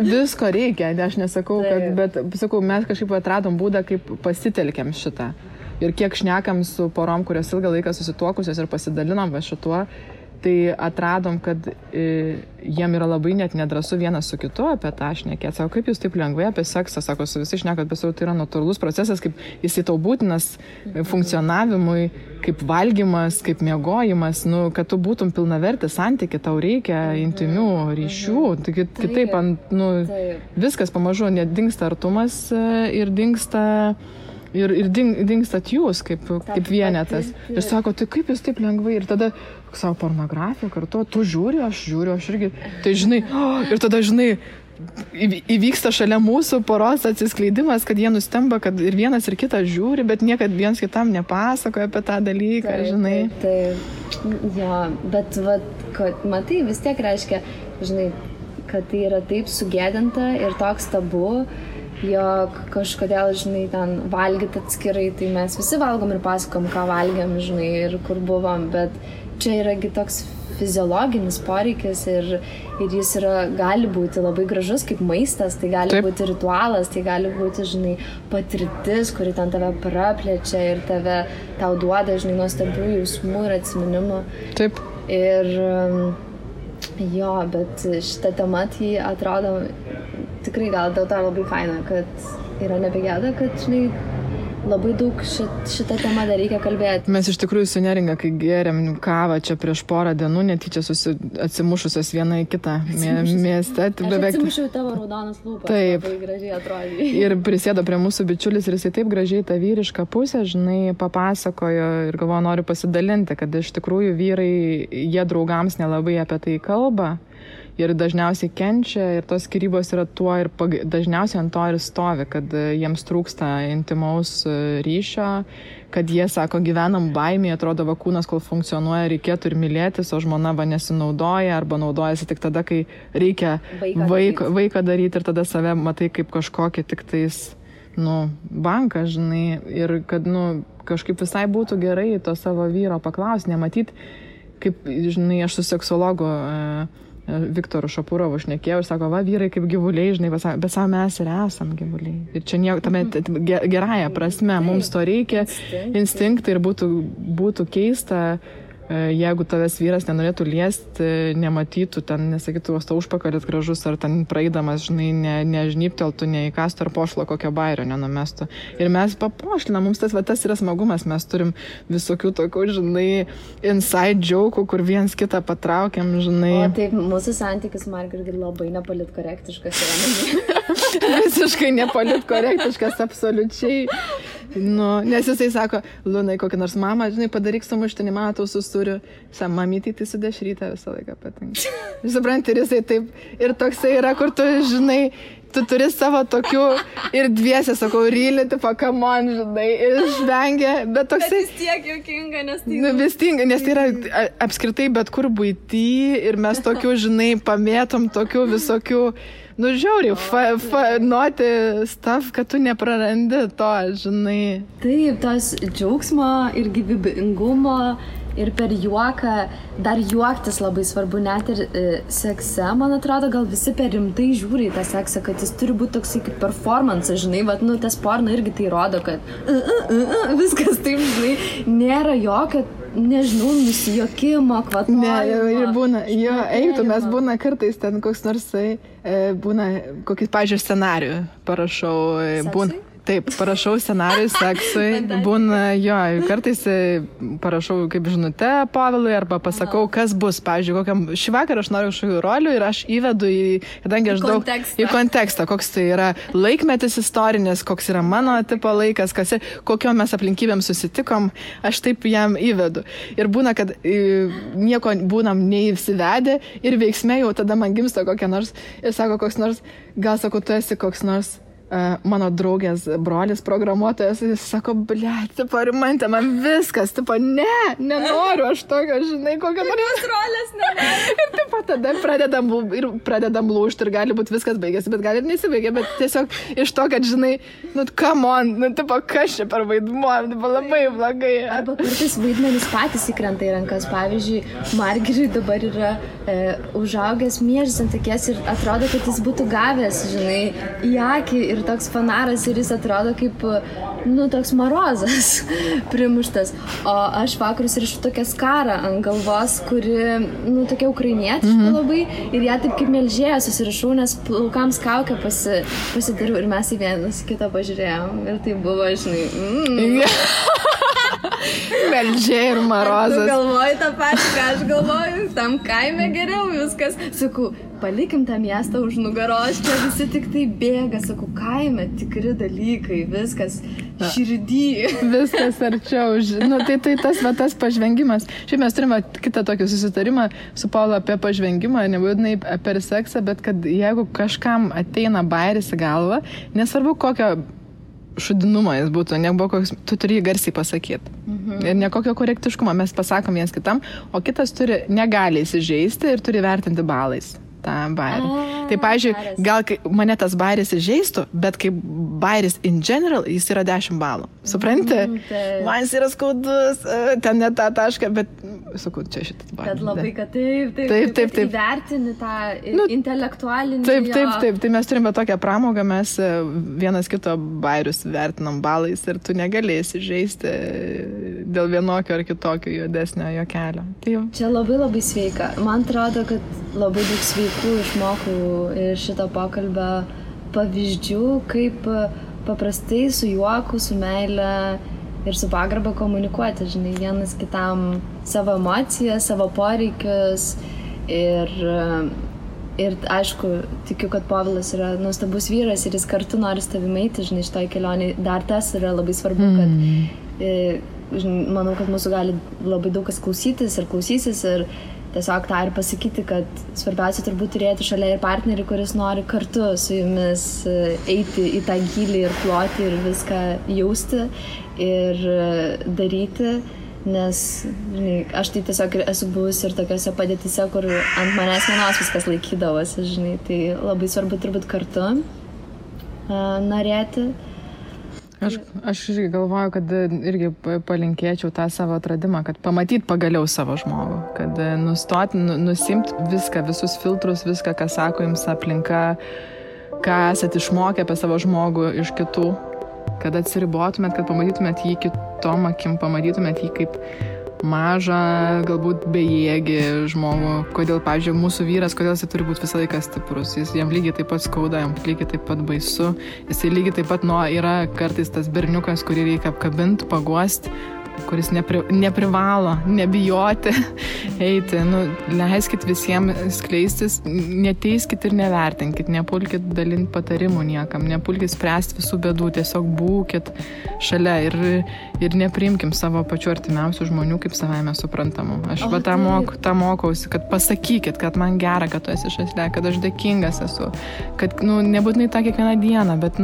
visko reikia, aš nesakau, bet, sakau, mes kažkaip atradom būdą, kaip pasitelkiam šitą. Ir kiek šnekam su porom, kurios ilgą laiką susituokusios ir pasidalinom šituo, tai atradom, kad jiem yra labai net nedrąsu vienas su kitu apie tą šnekėti. Sako, kaip jūs taip lengvai apie seksą, sako, su visi šnekat, bet tai yra natūralus procesas, kaip jisai tau būtinas funkcionavimui, kaip valgymas, kaip miegojimas, kad tu būtum pilnavertis santyki, tau reikia intimių ryšių. Tai kitaip, viskas pamažu, net dingsta artumas ir dingsta... Ir dingstat jūs kaip vienetas. Ir sako, tai kaip jūs taip lengvai? Ir tada savo pornografiją kartu, tu žiūri, aš irgi. Tai žinai, ir tada žinai, įvyksta šalia mūsų poros atsiskleidimas, kad jie nustemba, kad ir vienas ir kitas žiūri, bet niekad viens kitam nepasakoja apie tą dalyką, žinai. Taip, jo, bet matai, vis tiek reiškia, žinai, kad tai yra taip sugėdinta ir toks tabu, jog kažkodėl, žinai, ten valgyti atskirai, tai mes visi valgom ir pasakom, ką valgiam, žinai, ir kur buvom, bet čia yragi toks fiziologinis poreikis ir jis gali būti labai gražus kaip maistas, tai gali būti ritualas, tai gali būti, žinai, patirtis, kuri ten tave praplečia ir tau duoda, žinai, nuostabių jausmų ir atsiminimų. Taip. Ir jo, bet šitą temą tai atrodo tikrai gal dėl to labai faina, kad yra nebegėda, kad, žinai, labai daug šitą temą dar reikia kalbėti. Mes iš tikrųjų su Neringa, kai gėrėm kavą čia prieš porą dienų, netyčia atsimušusios viena į kitą mieste. Aš atsimušiau tavo raudonas lūpas, labai gražiai atrodė. Ir prisėdo prie mūsų bičiulis ir jisai taip gražiai tą vyrišką pusę, žinai, papasakojo ir galvoju, noriu pasidalinti, kad iš tikrųjų vyrai, jie draugams nelabai apie tai kalba. Ir dažniausiai kenčia ir tos skyrybos yra tuo ir dažniausiai ant to ir stovi, kad jiems trūksta intimaus ryšio, kad jie sako, gyvenam baimėje, atrodo va kūnas, kol funkcionuoja, reikėtų ir mylėtis, o žmona va nesinaudoja arba naudojasi tik tada, kai reikia vaiką daryti ir tada save matai kaip kažkokį tik tais, banką, žinai, ir kad, kažkaip visai būtų gerai to savo vyro paklausti, nematyti, kaip, žinai, aš su seksologu Viktoru Šapurovu šnekėjau ir sako, va, vyrai kaip gyvuliai, žinai, bet savo mes ir esam gyvuliai. Ir čia nieko, tame gerąją prasme, mums to reikia, instinktai ir būtų keista, jeigu tavęs vyras nenorėtų liesti, nematytų, ten nesakytų, to užpakalis gražus, ar ten praeidamas, žinai, nežnypteltų, neįkastų ar pošlo kokio bairio nenumestų. Ir mes papošlinam, mums tas yra smagumas, mes turim visokių tokių, žinai, inside joke'ų, kur viens kitą patraukiam, žinai. O taip, mūsų santykis, Margaret, labai nepolitkorektiškas yra. Visiškai nepolitkorektiškas, absoliučiai. Nes jisai sako, Lunai, kokį nors mamą, žinai, padaryk sumuštinį, matau, susuriu. Mamytį, tai su dešrytę visą laiką patinka. Supranti, ir jisai taip, ir toksai yra, kur tu, žinai, tu turi savo tokių ir dviese, sakau, rylį, tipo, come on, žinai, ir žvengia, bet toksai... Bet vis tiek juokinga, nes tai... Vis tiek, nes tai yra apskritai bet kur buity ir mes tokių, žinai, pamėtom tokių visokių... žiauriai, noti stuff, kad tu neprarandi to, žinai. Taip, tos džiaugsmo ir gyvybingumo ir per juoką, dar juoktis labai svarbu, net ir sekse, man atrodo, gal visi per rimtai žiūri į tą seksą, kad jis turi būti toksai kaip performance, žinai, tas porno irgi tai rodo, kad viskas taip, žinai, nėra jokio, nežinau, nusijokimo, kvatojimo. Ne, ir būna, mes būna kartais ten koks nors, būna kokį, pavyzdžiui, scenarijų parašau, būna. Taip, parašau scenarijų seksui, būna, kartais parašau kaip žinutę Pavilui arba pasakau, kas bus, pavyzdžiui, šį vakarą aš noriu kažkokių rolių ir aš įvedu kadangi aš daug į kontekstą, koks tai yra laikmetis istorinis, koks yra mano tipo laikas, kokio mes aplinkybėm susitikom, aš taip jam įvedu. Ir būna, kad nieko būnam neįsivedę ir veiksme jau tada man gimsta kokia nors ir sako koks nors, gal sako, tu esi koks nors mano draugės brolis programuotojas, jis sako, tipo, rimantė, man viskas, tipo, nenoriu aš tokio, žinai, kokią nors rolės nenoriu. Ir tipo, tada pradedam lūžti ir gali būti viskas baigėsi, bet gali ir nesibaigia, bet tiesiog iš to, kad, žinai, come on, tipo, kas čia per vaidmuo, tipo, labai blogai. Arba kartais vaidmenys patys įkrenta į rankas, pavyzdžiui, Margaret dabar yra užaugęs miežis ant akies ir atrodo, kad jis būtų gavęs, žinai, į akį ir toks fanaras ir jis atrodo kaip, toks marozas primuštas. O aš vakarus rišu tokią skarą ant galvos, kuri, tokia ukrainietiška labai ir ją taip kaip melžėja susirišau, nes plaukams kaukę pasidariau ir mes į vienas kitą pažiūrėjom ir tai buvo, žinai, melžėja ir marozas. Tu galvoji tą patį, ką aš galvoju, tam kaime geriau viskas. Sakau, palikim tą miestą už nugaros, čia visi tik tai bėga, sakau, kaime tikri dalykai, viskas širdį. Viskas arčiau. Tai tas pažvengimas. Šiaip mes turime kitą tokį susitarimą su Paulo apie pažvengimą, nebūtinai per seksą, bet kad jeigu kažkam ateina bairis į galvą, nesvarbu kokio šudinumo jis būtų, tu turi jį garsiai pasakyti. Ir nekokio korektiškumo mes pasakom viens kitam, o kitas negali įsižeisti ir turi vertinti balais tą bairį. Tai, pavyzdžiui, gal mane tas bairis įžeistų, bet kaip bairis in general, jis yra 10 balų. Supranti? Man jis yra skaudus, ten ne tą tašką, bet sakau, čia šitas bairis. Kad labai, kad taip. Įvertini tą intelektualinį. Taip. Tai mes turime tokią pramogą, mes vienas kito bairius vertinam balais ir tu negalėsi žaisti dėl vienokio ar kitokio juodesnio juokelio. Čia labai labai sveika. Man atrodo, kad labai daug sveikų išmokau iš šito pokalbio pavyzdžių, kaip paprastai su juoku, su meile ir su pagarba komunikuoti, žinai, vienas kitam savo emocijas, savo poreikius ir aišku, tikiu, kad Povilas yra nuostabus vyras ir jis kartu nori su tavimi eiti, žinai, šitoj kelionėj. Dar tas yra labai svarbu, kad manau, kad mūsų gali labai daug kas klausytis ir klausysis ir tiesiog tą ir pasakyti, kad svarbiausia turbūt turėti šalia ir partnerį, kuris nori kartu su jumis eiti į tą gylį ir ploti ir viską jausti ir daryti. Nes, žinai, aš tai tiesiog esu buvusi ir tokiose padėtise, kur ant manęs vienos viskas laikydavosi, žinai, tai labai svarbu turbūt kartu norėti. Aš irgi galvoju, kad irgi palinkėčiau tą savo atradimą, kad pamatyt pagaliau savo žmogų, kad nustoti, nusimt viską, visus filtrus, viską, ką sako jums aplinka, ką esat išmokę apie savo žmogų iš kitų, kad atsiribotumėt, kad pamatytumėt jį kitom akim, pamatytumėt jį kaip mažą, galbūt bejėgį žmogų. Kodėl, pavyzdžiui, mūsų vyras, kodėl jis turi būti visą laiką stiprus. Jam lygiai taip pat skauda, jam lygiai taip pat baisu. Jisai lygiai taip pat yra kartais tas berniukas, kurį reikia apkabinti, paguosti, kuris neprivalo, nebijoti eiti. Leiskit visiems skleistis, neteiskit ir nevertinkit, nepulkit dalinti patarimų niekam, nepulkit spręsti visų bėdų, tiesiog būkit šalia ir nepriimkim savo pačių artimiausių žmonių kaip savaime suprantamų. Aš tą mokausi, kad pasakykit, kad man gera, kad tu esi šalia, kad aš dėkingas esu, kad nebūtinai tą kiekvieną dieną, bet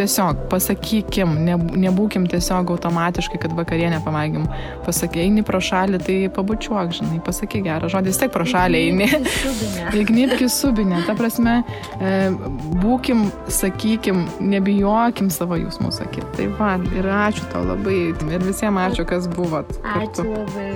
tiesiog pasakykim, nebūkim tiesiog automatiškai, kad vakarienę pamaigim. Pasakai, eini pro šalį, tai pabučiuok, žinai, pasakai gerą žodį, vis tiek pro šalį eini. Įgnybki subinę. Ta prasme, būkim, sakykim, nebijokim savo jausmų sakyti. Tai va, ir ačiū tau labai. Ir visiems ačiū, kas buvot. Ačiū labai.